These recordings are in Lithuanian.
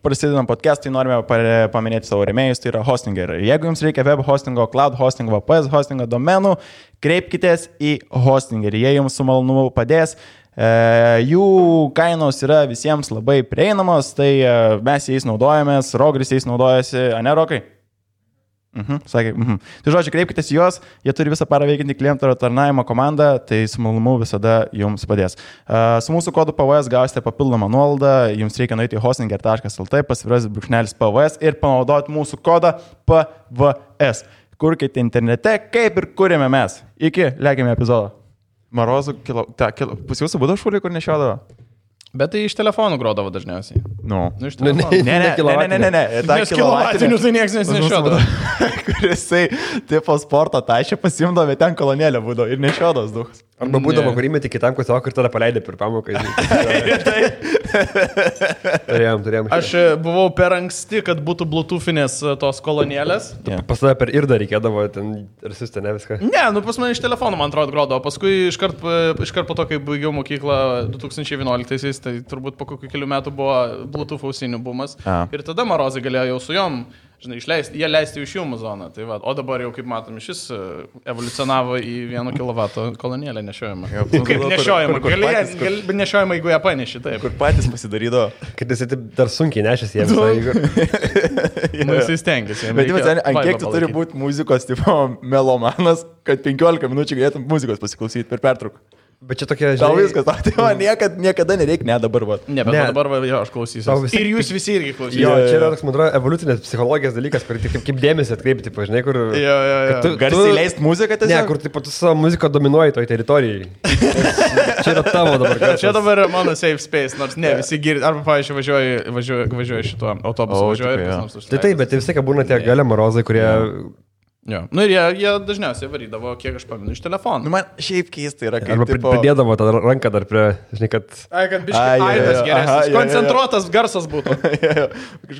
prasidedam podcast'ai, norime paminėti savo rėmėjus, tai yra Hostinger. Jeigu jums reikia web hostingo, cloud hostingo, VPS hostingo, domenų, kreipkitės į Hostinger. Jie jums su malonumu padės. Jų kainos yra visiems labai prieinamos, tai mes jais naudojamės, Rogris jais naudojasi, ane Rokai? Sakė, Tai žodžiu, kreipkitės į juos, jie turi visą parą veikiantį klientų tarnavimo komandą, tai su malonumu visada jums padės. Su mūsų kodu PVS gausite papildomą nuolaidą, jums reikia nueiti į hostinger.lt, _PVS ir panaudoti mūsų kodą PVS. Kurkite internete, kaip ir kūrėme mes. Iki, lėkime epizodą. Marozų pas jūsų būdavo šūlį, kur nešiodavo? Bet tai iš telefonų grodavo dažniausiai. Iš telefonų. Ne. Nes kilovatinių tai niekas nešiodavo. Kurisai tipo sporto tašė pasimdavo, ten kolonėlė būdavo ir nešiodavas duhas. Arba būdavo, kur įmeti kitam klasiokui ir tada paleidė per pamoką. Turėjom. Aš buvau per anksti, kad būtų bluetoothinės tos kolonėlės. Pas tada per irdą reikėdavo ten ir siusti, ne viską. Ne, pas mane iš telefonų, man atrodo, grodavo. Paskui iškart po to, kai baigiau mokyklą 2011-aisiais, tai turbūt po kokių kelių metų buvo Bluetooth ausinių bumas. Ir tada Marozai galėjo jau su jom, jie leisti iš jų zoną. Tai va, o dabar jau, kaip matom, šis evoliucionavo į 1 kW kolonėlę nešiojimą. Kaip nešiojimą? Gali nešiojimą, jeigu ją paneši, taip. Kur patys pasidarydo. Kad jis dar sunkiai nešėsi jiems. Jis stengiasi. Bet ant kiek tu turi būti muzikos tipo melomanas, kad 15 minučių galėtum muzikos pasiklausyti per pertrauką. Bet čia tokia, žinai... Tau viskas, tai niekada nereikia, dabar va. Ne, bet dabar va, jo, aš klausysiu. Ir jūs visi irgi klausysite. Jo, čia yra toks, man atrodo, evoliucinės psichologijos dalykas, kur kaip dėmesį atkreipti, žinai, kur... Jo. Garsiai leist muziką tiesiog? Ne, kur tu savo muziką dominuoji toj teritorijai. Čia yra tavo dabar garsas. Čia dabar yra mano safe space, nors ne, visi girdi. Arba, pavyzdžiui, važiuoju šituo autobusu, Tai bet vis tiek būna tie gale Marozai, kurie... Jo. Ir jie dažniausiai varydavo, kiek aš paminu, iš telefonų. Man šiaip keista yra, kaip... Arba pridėdavo tą ranką dar prie, žinai, kad... Kad biškai aidas geresnis, koncentruotas garsas būtų.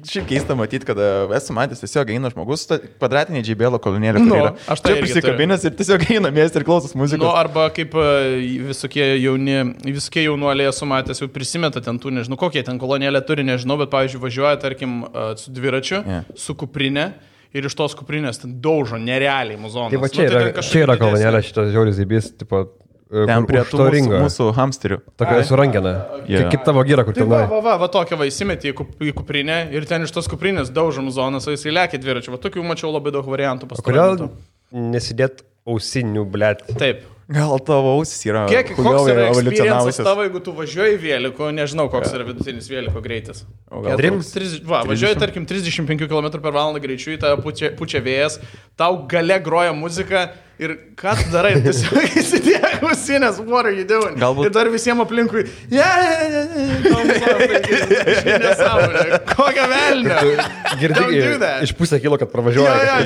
Šiaip keista matyti, kad esu matęs, tiesiog eina žmogus, kvadratinė JBL kolonėlė, kur yra. Aš tai prisikabinęs ir tiesiog eina miestą ir klausos muzikos. Arba kaip visokie jaunuoliai esu matęs, jau prisimeta ten tų, nežinau, kokie ten kolonėlė turi, nežinau, bet, pavyzdžiui, važiuoja, tarkim, su dviračiu, su kuprinė. Ir iš tos kuprinės ten daužo nerealiai muzonas. Tai va čia yra kolonėlė šitas žiauris zybys, tipo, ten prie tų mūsų hamsterių. Tokia surangena. Kaip tavo gyra, kur ten. Va tokia va įsimetė į kuprinę ir ten iš tos kuprinės daužo muzonas, o jisai lekia dviračiu. Va tokių mačiau labai daug variantų pastaruoju metu. Kodėl nesidėt ausinių, blėt? Taip. Gal tavo ausis yra koks yra experiences tavo, jeigu tu važiuoji vėliku, nežinau, koks yra vidutinis vėliko greitis. Važiuoji, tarkim, 35 km/h greičiu, į tą pučia vėjas, tau gale groja muzika ir ką tu darai, tiesiog įsidėk ausinės, what are you doing? Ir dar visiems aplinkui, nesąmonė, kokią velnę. Girdi, iš pusę kilo, kad pravažiuoja.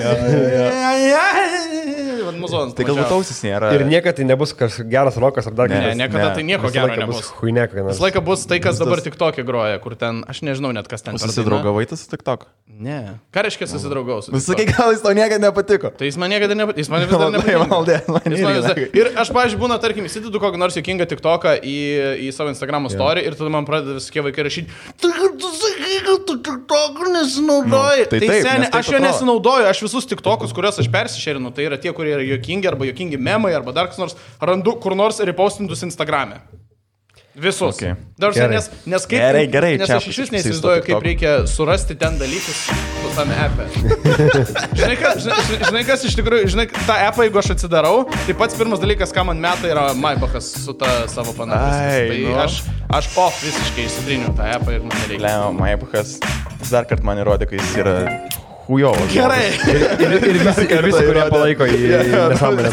Tai galbūt ausis nėra. Ir niekada tai nebus geras rokas ar dar kažkas. Ne, niekada tai nieko gero nebus. Visą laiką bus tai, kas dabar TikTok'e groja, kur ten, aš nežinau net kas ten. Susidraugavai tu su TikTok? Ne. Ką reiškia susidraugau su TikTok? Sakai, gal jis tau niekada nepatiko. Tai jis man niekada nepatiko. Jis man vis dar nepatiko. Ir aš, pavyzdžiui, būna, tarkim, įsidedu kokį nors juokingą TikTok'ą į savo Instagram story ir tada man pradeda visokie vaikai rašyti, tu sakai, kad tu TikTok'u nesinaudoji. Tai seniai, aš jo nesinaudoju, aš visus TikTok'us, kuriuos aš persišerinu, tai yra tie, kurie yra juokingi arba juokingi memai arba dar kas nors, randu kur nors repostintus Instagram'e. Visus. Okay. Nes aš iš vis neįsivaizduoju, kaip reikia surasti ten dalykus tame app'e. Žinai, kas iš tikrųjų, tą app'ą, jeigu aš atsidarau, tai pats pirmas dalykas, ką man meta, yra Maybachas su ta savo panašus. Tai aš visiškai įsitriniu tą app'ą ir man nereikia. Leo, Maybachas dar kartą man įrodė, kad jis yra hujovas. Gerai. Ir visi, kurie palaiko į nesąmonę.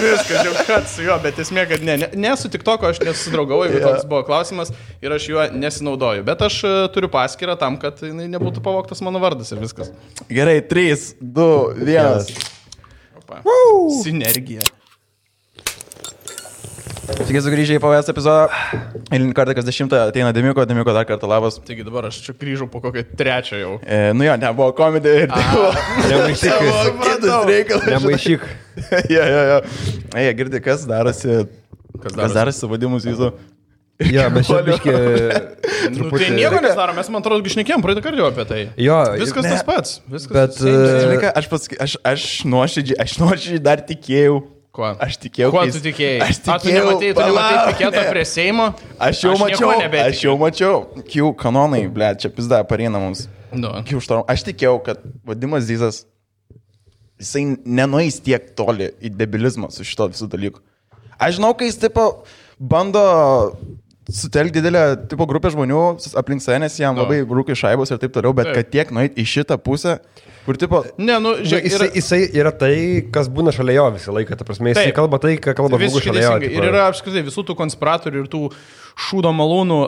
Viskas, jau kad su juo, bet esmė, kad ne su TikTok'u aš nesusidraugau, jeigu toks buvo klausimas ir aš juo nesinaudoju. Bet aš turiu paskyrą tam, kad nebūtų pavogtas mano vardas ir viskas. Gerai, 3, 2, 1. Sinergija. Sveiki sugrįžę į PVS epizodą. Eilinį kartą, kas 10 ateina Demiko dar kartą labas. Taigi dabar aš čia grįžau po kokią 3 jau. Nebuvo komedija ir tai buvo. Nemaišyk. Jo. Girdi, kas darosi su vadimus jūsų. Jo, mes čia Nu, tai nieko nesidaro, mes, man atrodo, šnekėjom praeitą kartą apie tai. Jo, viskas tas pats. Bet, aš nuoširdžiai dar tikėjau. Kuo? Aš tikėjau. Kuo tu tikėjai? Tu nematei piketo prie Seimo? Aš jau mačiau. Kių kanonai, ble, čia pizda pareina mums. Kių štorm. Aš tikėjau, kad Vadimas Zizas, jisai nenueis tiek toli į debilizmą su šito visų dalykų. Aš žinau, kai jis tipo bando sutelkti didelę tipo grupę žmonių aplink save, nes jam labai rūkai šaibos ir taip toliau, bet kad tiek nueit į šitą pusę, kur tipo... Ne, nu, žiūrėk, jisai yra tai, kas būna šalia jo visą laiką, ta prasme, jisai kalba tai, ką kalba žmogus šalia jo. Ir yra apskritai visų tų konspiratorių ir tų šūdo malūnų,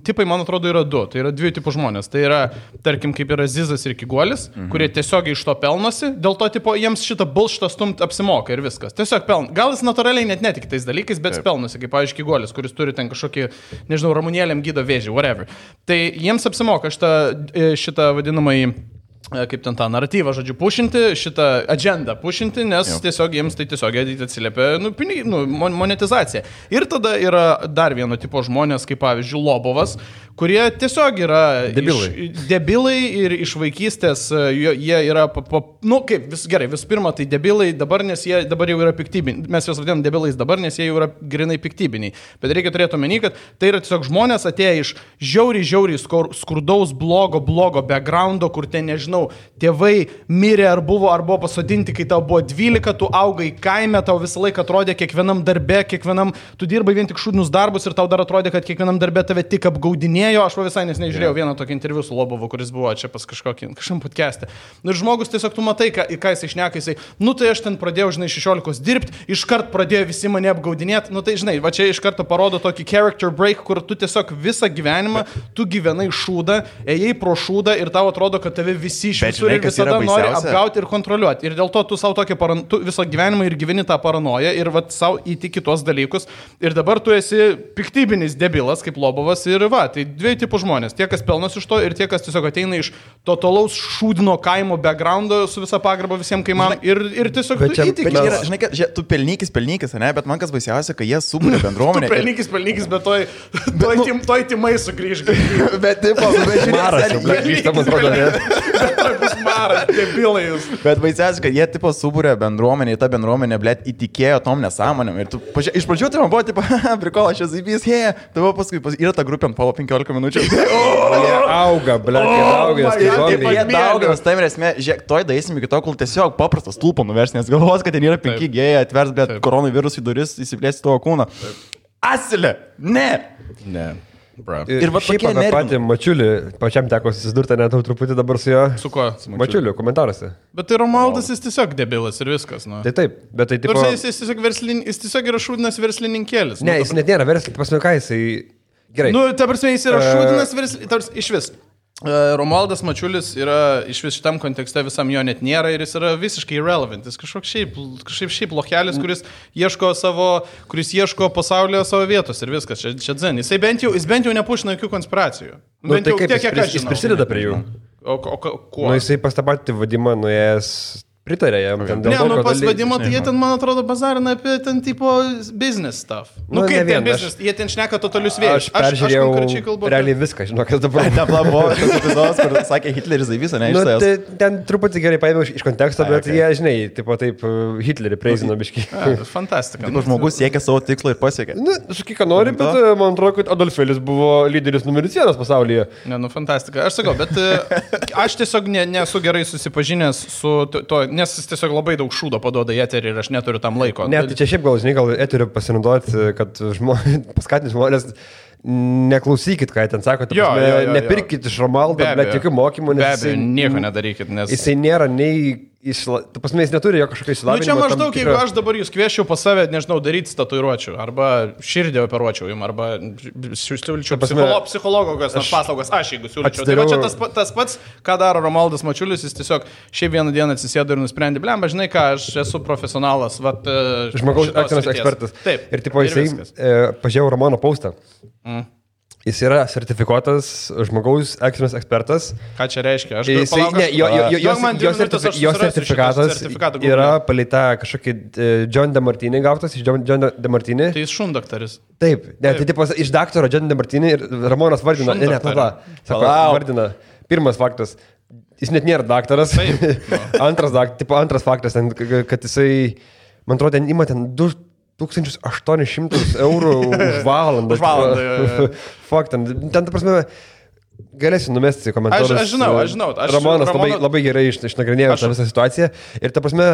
tipai, man atrodo, yra du. Tai yra dviejų tipų žmonės. Tai yra, tarkim, kaip yra Zizas ir Kiguolis, kurie tiesiog iš to pelnosi, dėl to, tipo, jiems šitą bullshitą stumt apsimoka ir viskas. Tiesiog pelnosi. Gal jis natūraliai net netiki tais dalykais, bet pelnosi, kaip, pavyzdžiui, Kiguolis, kuris turi ten kažkokį, nežinau, ramunėlėm gydo vėžį, whatever. Tai jiems apsimoka šitą vadinamąjį, kaip ten tą naratyvą, žodžiu, pušinti, šitą agendą pušinti, nes tiesiog jiems tai tiesiog atsiliepia monetizacija. Ir tada yra dar vieno tipo žmonės, kaip pavyzdžiui Lobovas, kurie tiesiog yra debilai ir iš vaikystės jie yra, gerai, visų pirma, tai debilai dabar, nes jie dabar jau yra piktybiniai. Mes juos vadinam debilais dabar, nes jie jau yra grinai piktybiniai. Bet reikia turėti omeny, kad tai yra tiesiog žmonės atėję iš žiauriai skurdaus, blogo backgroundo, kur ten, nežinau, tėvai mirė ar buvo pasodinti, kai tau buvo 12, tu augai kaime, tau visą laiką atrodė kiekvienam darbe, tu dirbai vien tik šūdinius darbus ir tau dar atrodė, kad kiekvienam darbe tave tik apgaudinėjo. Aš visai nesnei žiūrėjau vieną tokį interviu su Lobovu, kuris buvo čia pas kažkam podcast'e. Ir žmogus tiesiog tu matai, ką jis išneka, jisai, tai aš ten pradėjau, 16 dirbti, iškart pradėjo visi mane apgaudinėti, tai žinai, va čia iš karto parodo tokį character break, kur tu tiesiog visą gyvenimą, tu gyvenai šūdą, ėjai pro šūdą ir tau atrodo, kad tave visi iš visur ir visada nori apgauti ir kontroliuoti. Ir dėl to tu savo tu visą gyvenimą ir gyveni tą paranoją ir va savo įtiki tuos dalykus. Ir dabar tu esi piktybinis debilas, kaip Lobovas ir va, tai dviejų tipų žmonės. Tie, kas pelnos iš to ir tie, kas tiesiog ateina iš totalaus šūdino kaimo backgroundo su visa pagarba visiems kaimam ir tiesiog tu įtiki. Žinai, kad tu pelnykis, ne, bet man kas baisiausia, kad jie subūrė bendruomenę. Tu pelnykis, bet toj timai sugrįž. Bet tipo, maras, debilai jūs. Bet baisiausia, kad jie tipo subūrė bendruomenę, ta bendruomenė, blėt, įtikėjo tom nesąmonėm. Ir tu, iš pradžių tai man buvo, tipo, prikola, aš esu įpys, tavo paskui yra ta grupė ant polo 15 minučių. Jie auga, blėt, jie dauginas, tai esmė, žiūrėk, toj daisim iki to, kol tiesiog paprastas stulpo nuvers, nes galvos, kad ten yra 5 gėjai, atvers, bet koronavirus į duris įsiplėsti tavo kūną. Asilė! Ne! Bro. Ir va šiaip apie patį Mačiulį, pačiam teko susidurti net truputį dabar su jo. Su kuo? Mačiuliu, komentaruose. Bet tai Romualdas, jis tiesiog debilas ir viskas, nu. Tai taip, bet tai tipo... Jis tiesiog yra šūdinas verslininkėlis. Ne, jis net nėra verslininkas, pasme ką jisai... Gerai. Ta prasme, jis yra šūdinas verslininkas, iš vis. Romualdas Mačiulis yra iš vis šitam kontekste visam jo net nėra ir jis yra visiškai irrelevant. Jis kažkoks šiaip lokelis, kuris ieško pasaulyje savo vietos ir viskas. Čia dzen. Jis bent jau nepušina jokių konspiracijų. Tai kaip jis prisideda prie jų? O kuo? Jisai pas tą patį Vadimą nuėjęs pritarė jam. Pas Vadimą, tai jie ten, man atrodo, bazarina apie ten tipo business stuff. Kaip ten business, jie ten šneka totalius vėjus. Aš peržiūrėjau realiai viską, žinok, kas dabar. Buvo tas epizodas, kur sakė Hitleris visą, ne? Tai ten truputį gerai paėmiau iš konteksto, bet jie, žinai, tipo taip Hitlerį preizino biškį. Fantastika. Žmogus siekia savo tikslo ir pasiekė. Sakyk, ką nori, bet man atrodo, kad Adolfėlis buvo lyderis numeris 1 pasaulyje. Fantastika. Aš sakau, bet aš tiesiog nesu gerai susipažinęs su to, nes jis tiesiog labai daug šūdo paduoda į eterį ir aš neturiu tam laiko. Ne, tai čia šiaip gal eteriu pasinaudoti, kad paskatinti žmonės, neklausykit, ką ten sako, nepirkit iš Romualdo, bet jokių mokymų, nes nieko nedarykit, nes jisai nėra nei tu pasme, jis neturi jo kažkokio išsilavinimo. Čia maždaug, jeigu aš dabar jūs kvieščiau pas save, nežinau, daryti tatuiruočių, arba širdį operuočiau jums, arba siūlyčiau psichologo paslaugas, aš jeigu siūlyčiau. Tai va čia tas pats, ką daro Romualdas Mačiulis, jis tiesiog šiaip vieną dieną atsisėdo ir nusprendė, blemba, žinai ką, aš esu profesionalas, žmogaus aktorius ekspertas. Taip. Ir tipo jisai pažiūrėjau Romano postą. Jis yra sertifikuotas žmogaus ekstrinis ekspertas. Ką čia reiškia? Aš jo sertifikatas yra palita kažkokį John DeMartini gautas iš John DeMartini. Tai jis šundaktaris. Taip, tai tipo iš daktaro John DeMartini ir Ramonas vardina. Vardina. Pirmas faktas. Jis net nėra daktaras. Antras faktas, kad jisai, man atrodo, ten ima ten 2800 eurų už valandą. Už valandą. Fakt, ten ta prasme, galėsiu numesti komentarus. Aš žinau. Ramonas labai gerai išnagrinėjo tą visą situaciją. Ir ta prasme,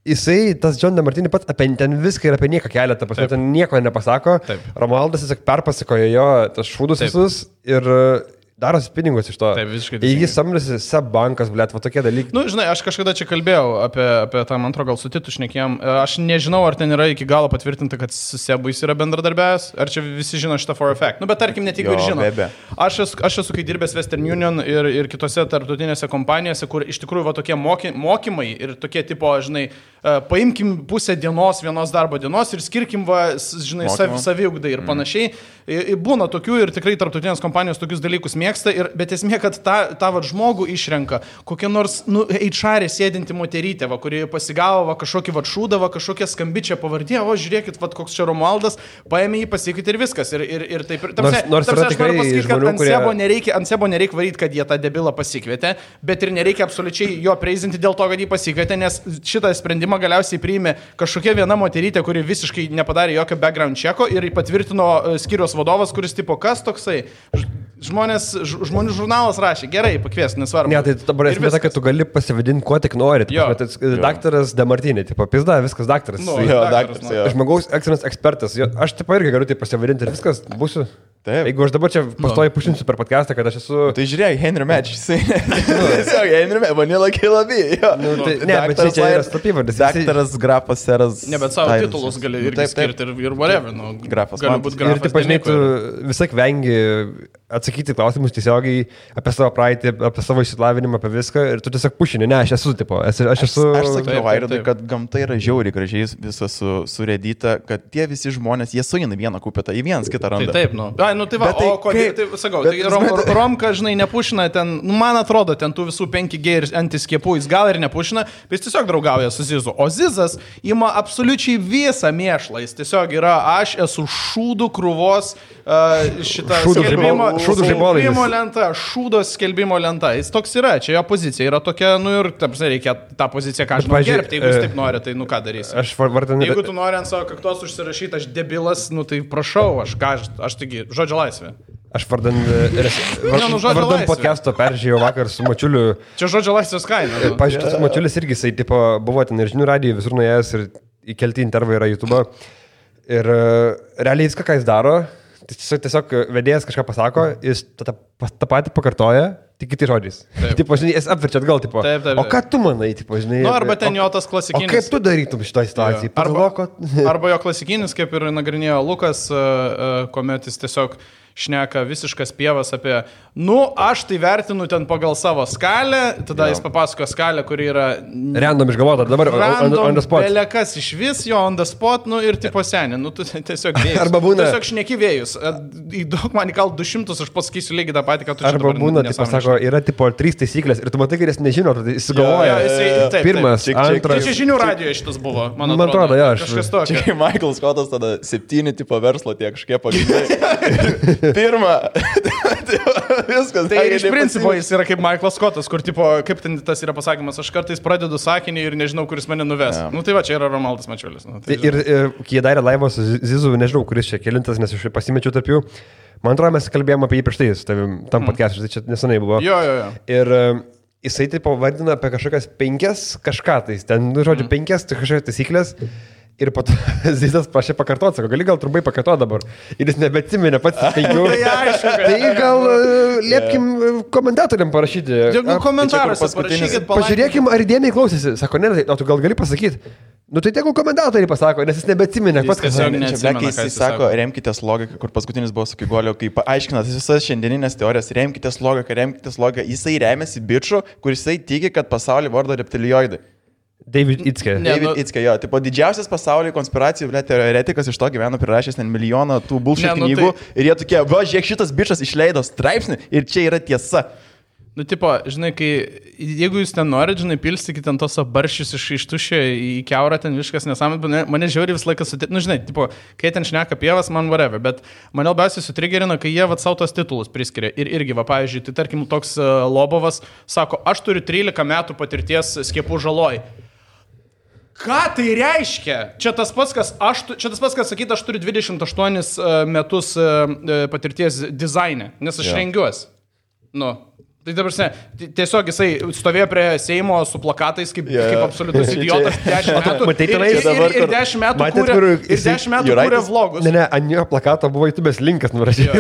jisai, tas John DeMartini pats apie ten viską ir apie nieką kelia, ta prasme, ten nieko nepasako. Taip. Romualdas tiesiog perpasakojo jo tas šūdus visus ir darosi pinigus iš to. Taip, visiškai. Jis samdėsi SEB bankas, blėt, va tokie dalykai. Nu, žinai, aš kažkada čia kalbėjau apie tą, man atrodo, gal su Titu šnekėjom. Aš nežinau, ar ten yra iki galo patvirtinta, kad su SEB jis yra bendradarbiavęs, ar čia visi žino šitą for a fact. Nu, bet tarkim, net jeigu ir žino. Aš esu kai dirbęs Western Union ir kitose tarptautinėse kompanijose, kur iš tikrųjų va tokie mokymai ir tokie tipo, žinai, paimkim pusę dienos, vienos darbo dienos ir skirkim, va, žinai, saviugdai ir panašiai. Būna tokių ir tikrai tarptautinės kompanijos tokius dalykus mėgsta, bet esmė, kad tą va, žmogų išrenka kokia nors HR sėdinti moterytė, va, kuri pasigavo va, kažkokį va, šūdą, va, kažkokią skambičią pavardė, o žiūrėkit, va, koks čia Romualdas, paėmė jį, pasakyti ir viskas. Ir taip. Nors yra tikrai pasakyti, kad žmonių, ant Sebo nereikia varyti, kad jie tą debilą pasikvietė, bet ir nereikia absoliučiai jo preizinti dėl to, kad jį pasikvietė, nes šitą sprendimą galiausiai priėmė kažkokia viena moterytė, kuri visiškai nepadarė jokio background checko ir patvirtino skyriaus vadovas, kuris tipo, kas toksai? Žmonių žurnalas rašė, gerai, pakvies, nesvarbu. Ne, tai dabar esmė ta, kad tu gali pasivadinti, kuo tik nori. Daktaras DeMartini, tipo, pizda, viskas daktaras. Daktaras. Žmogaus ekstrinis ekspertas. Aš taip irgi galiu tai pasivadinti ir viskas būsiu. Taip. Jeigu aš dabar čia pastoju pušinsiu per podcastą, kad aš esu... Tai žiūrėk, Henry Match, jisai... Tiesiog Henry Match, Vanilla Kilabi. Ne, bet čia yra slapyvardis. Daktaras, grafas, seras... Ne, bet savo titulus gali irgi skirti ir whatever. Grafas. Gali būti grafas. Ir taip, žinai, tu visai vengi atsakyti klausimus tiesiogiai apie savo praeitį, apie savo išsilavinimą, apie viską ir tu tiesiog pušini. Ne, aš esu, tipo, aš sakiau Vairodui, kad gamta yra žiauriai gražiai visas surėdyta, kad tie visi žmonės, jie suina vieną kupetą, į vienas kitą randa. Taip, nu tai va, o kodėl, tai sakau, tai Romka, žinai, nepušina ten, nu, man atrodo, ten tų visų 5G ir antiskiepų, jis gal ir nepušina, bet jis tiesiog draugauja su Zizu. O Zizas ima absoliučiai visą mėšlą, jis tiesiog yra, aš esu šūdų krūvos šitą skelbimo lenta, šūdos skelbimo lenta, jis toks yra, čia jo pozicija yra tokia, nu ir, taip, reikia tą poziciją, ką aš noriu gerbti, jeigu jis taip nori, tai nu ką darysi. Jeigu tu nori ant savo kaktos užsirašyti, aš debilas, nu tai prašau, aš taigi, žodžio laisvė. Aš vardan podcast'o peržiūrėjau vakar su Mačiuliu. Čia žodžio laisvės kaina. Pavyzdžiui, tas Mačiulis irgi, jisai tipo, buvo ten ir žinių radijo, visur nuėjęs ir įkelti intervai yra YouTube. Ir realiai viską, ką jis daro, tiesiog vedėjas kažką pasako, jis tą patį pakartoja, tik kitai žodžiais. Tipo, žinai, jis apverčia atgal, tipo, taip. O ką tu manai, tipo, žinai? Nu, arba ten jo tas klasikinis. O kaip tu darytum šitą situaciją? Arba jo klasikinis, kaip ir nagrinėjo Lukas, kuomet jis tiesiog šneka visiškas pievas apie, nu, aš tai vertinu ten pagal savo skalę, tada jis papasako skalę, kuri yra... Random išgalvota, dabar on the spot. Belekas iš vis, jo on the spot, nu ir tipo seni, nu, tu tiesiog vėjus. Arba būna... Tiesiog šneki vėjus. Įdaug man įkal 200, aš pasakysiu lygiai tą patį, ką tu čia dabar nesąmonė. Arba būna, tipo, sako, yra tipo 3 taisyklės ir tu matai, kad jis nežino, tai jis sugalvoja. Pirmas, antras... Čia žinių radijoje šitas buvo, man atrodo. Kažkas tokio. Čia Michael Scottas tada 7 tipo verslo tiek kažkiek pagrindai. Pirma, viskas. Tai iš principo jis yra kaip Michaelas Scottas, kur tipo, kaip ten tas yra pasakymas, aš kartais pradedu sakinį ir nežinau, kuris mane nuves. Nu tai va, čia yra Romualdas Mačiulis. Nu, tai ir kai jie darė laivą su Zizu, nežinau, kuris čia kelintas, nes aš pasimečiau tarp jų. Man atrodo, mes kalbėjome apie jį prieš tai, tam podcast'ui, tai čia nesenai buvo. Jo. Ir jisai taip vardina apie kažkokias 5 kažką, tai ten, nu, žodžiu, 5 kažkokias taisyklės. Ir po to Zizas prašė pakartoti, sako, gali gal trumpai pakartoti dabar. Ir jis nebeatsiminė pats 5. Tai gal liepkim komentatoriam parašyti. Jeigu komentaruose parašykit, pažiūrėkim, ar įdėmiai klausėsi. Sako, ne, o tu gal gali pasakyti. Nu tai tegul komentatoriai pasako, nes jis nebeatsiminė. Jis sako, remkitės logiką, kur paskutinis buvo su Kigolio, kai paaiškinat visas šiandieninės teorijas, remkitės logiką. Jisai remiasi biču, kur jisai tiki, kad pasaulį vardo reptilioidai. David Itzke. David Itzke, jo, tipo didžiausias pasaulyje konspiracijų, blėt, teoretikas iš to gyveno prirašęs ten milijoną tų bullshit knygų ir jie tokie, va, žiūrėk, šitas bičas išleido straipsnį ir čia yra tiesa. Nu, tipo, žinai, jeigu jūs ten norit, žinai, pilstykite ten tos barščius iš tuščio į keurą, ten viskas nesąmonė, mane žiauriai visą laiką nu, žinai, tipo, kai ten šneka pievas, man whatever, bet mane labiausiai sutrigerina, kai jie savo tos titulus priskiria. Ir irgi, va, pavyzdžiui, tai tarkim, toks Lobovas sako, aš turiu 13 metų patirties skiepų žaloj. Ką tai reiškia? Čia tas pats, kas sakyti, aš turiu 28 metus patirties dizaine, nes aš rengiuosi. Nu. Tai dabar, tiesiog jisai stovėjo prie Seimo su plakatais kaip absoliutus idiotas 10 metų. Ir 10 metų kūrė vlogus. Ne, ant jo plakato buvo YouTube'ės linkas nurašytas.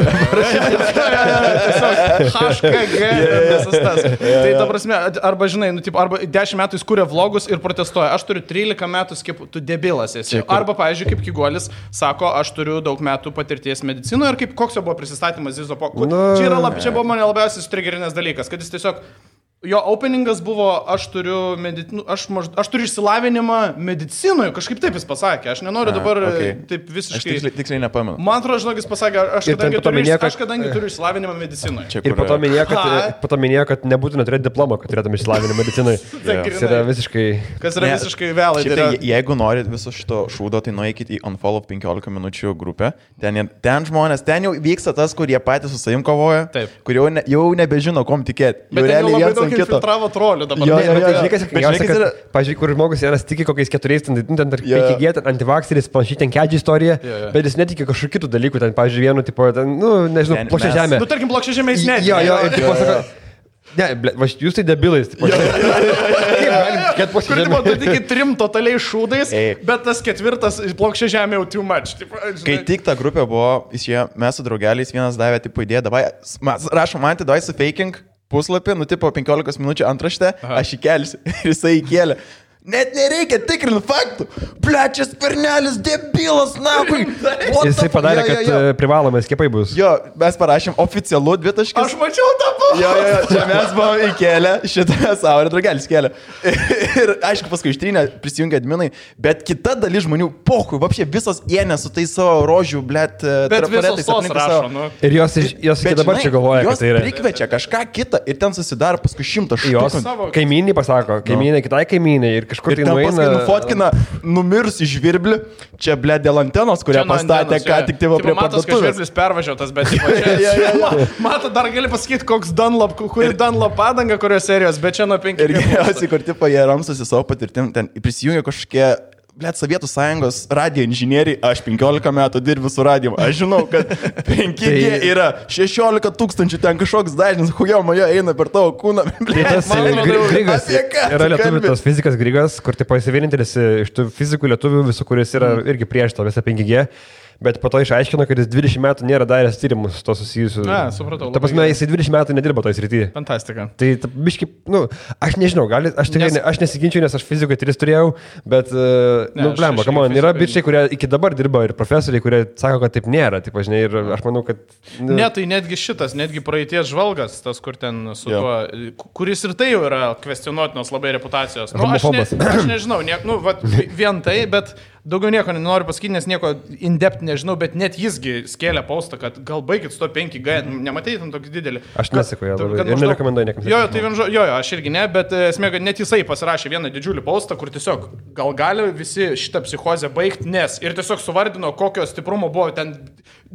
Tiesiog HKG visas tas. Tai ta prasme, arba žinai, arba 10 metų jis kūrė vlogus ir protestuoja. Aš turiu 13 metų skiepų, tu debilas esi. Arba, pavyzdžiui, kaip Kiguolis sako, aš turiu daug metų patirties medicinoje ir koks jo buvo prisistatymas Zizopo. Čia buvo mane labiausiai sutrigerinęs dalykas. Kad jis tiesiog, jo openingas buvo, aš turiu išsilavinimą medicinoje, kažkaip taip jis pasakė, aš nenoriu dabar taip visiškai... Aš tiksliai nepamenu. Man atrodo, žinok, jis pasakė, aš kadangi turiu išsilavinimą medicinoje. Ir po to minėjo, kad nebūtina turėti diplomą, kad turėtum išsilavinimą medicinoje. Tas yra visiškai... Kas yra visiškai vėlai. Jeigu norit viso šito šūdo, tai nueikit į Unfollow 15 minučių grupę. Ten žmonės, ten jau vyksta tas, kurie patys su savim kovoja, kur jau nebežino, kom tikėti. Bet ten jau labai daug infiltravo trolių dabar. Pavyzdžiui, kur žmogus vienas tiki kokiais 4, ten 5G, antivakseris, panašiai ten kedžiai istorija, bet jis netiki kažkokių kitų dalykų, ten, pavyzdžiui, vienu, tipo, ten, nu, nežinau, plokščia žemė. Nu, tarkim, plokščia žemė jis netiki. Jo, ir tipo, sako, ne, jūs tai debilais, tipo. Kur tipo, tu tiki 3 totaliai šūdais, bet tas 4 plokščia žemė jau too much. Kai tik ta grupė buvo, mes su draugeliais vienas davė, tipo, idėją, davai, rašom, man davai su faking puslapį, nu, tipo, 15 minučių antraštę, aš įkelsiu ir jisai įkėlė. Net nereikia tikrinti faktų. Plečias pernelis, debilas, nahui. Jisai padarė, kad privalomai skiepai bus. Jo, mes parašėm oficialų 2 taškus. Aš mačiau tą buvo. Jo, čia mes buvom įkėlę, šitą savo ir draugelis kėlė. Ir aišku, paskui ištrynė, prisijungė adminai, bet kita dalis žmonių, pohui, vapšė visos ėnė su tai savo rožių, blėt, trafaretais aplink savo. Nu. Ir jos iki dabar čia galvoja, kad tai yra. Jos prikvečia kažką kitą ir ten susidaro paskui 100 štukų. Jos kaimynai pasako, kaimynai kitai kaimynai ir kažkur tai nueina. Nufotkina numirusį žvirblį, čia blė dėl antenos, kurią pastatė ką tik tai prie parduotuvės. Matos, kad žvirblis pervažiuotas, bet mato, dar gali pasakyti, koks Dunlop, kuri Dunlop padanga, kurios serijos, bet čia nuo 5. Ir geriausiai, kur tipo jie ramstosi savo patirtim, ten prisijungia kažkokie, blėt, Sovietų sąjungos radio inžinieriai, aš 15 metų dirbu su radijom, aš žinau, kad 5G yra 16 000, ten kažkoks dažnis, hujo mojo eina per tavo kūną. Tas Grigas, yra lietuvių tos fizikas Grigas, kur tipo jis vienintelis iš tų fizikų lietuvių visų, kuris yra irgi prieš tą visą 5G. Bet po to išaiškino, kad jis 20 metų nėra daręs tyrimus to susijusiu. Na, supratau. Ta prasme, jisai 20 metų nedirbo toj srityje. Fantastika. Tai biškai, nu, aš nežinau, aš nesiginčiu, nes aš fizikoje 3 turėjau, bet, blemba, kamon, yra bičiai, kurie iki dabar dirba ir profesoriai, kurie sako, kad taip nėra, taip, žinai, ir aš manau, kad... Ne, tai netgi praeities žvalgas, tas, kur ten su tuo, kuris ir tai jau yra kvestionuotinos labai reputacijos. Nu, aš nežinau, vien tai, bet... Daugiau nieko nenoriu pasakyti, nes nieko in-depth nežinau, bet net jisgi skėlė postą, kad gal baigit su to 5G, nematei tam tokį didelį. Aš nesakau, ir nerekomenduoju niekam. Jo, aš irgi ne, bet esmė, kad net jisai pasirašė vieną didžiulį postą, kur tiesiog gali visi šitą psichozę baigti, nes ir tiesiog suvardino, kokio stiprumo buvo ten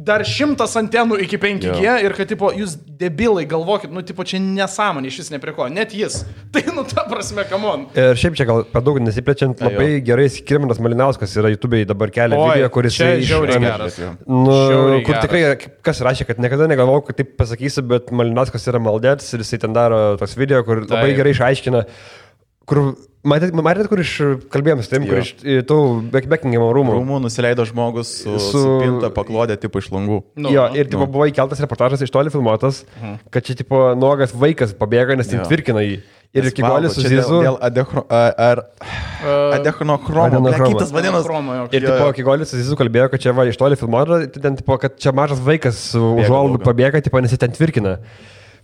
dar 100 antenų iki 5G ir kad, tipo, jūs debilai galvokit, nu, tipo, čia nesąmonė, iš vis nepriko, net jis. Tai, nu, ta prasme, come on. Ir šiaip čia gal per daug nesiplečiant, labai gerai Skirmantas Malinauskas yra YouTube'ai dabar kelia video, kuris žiauriai geras. Kur tikrai, kas rašė, kad niekada negalvojau, kad taip pasakysiu, bet Malinauskas yra maldėtis ir jisai ten daro toks video, kur labai gerai išaiškina, kur matėt, kur kalbėjom su tim, kur iš tų Buckingham rūmų nusileido žmogus su pinta paklodė tipo iš langų. Jo, ir tipo buvo įkeltas reportažas iš toli filmuotas, kad čia tipo nuogas vaikas pabėga, nes ten tvirkina jį. Ir Kiguolis su Zizu. Dėl adechronochromo. Kitas vadinamas. Ir tipo Kiguolis su Zizu kalbėjo, kad čia va iš toli filmuota, kad čia mažas vaikas su užuolaidu pabėga, tipo, nes jis ten tvirkina.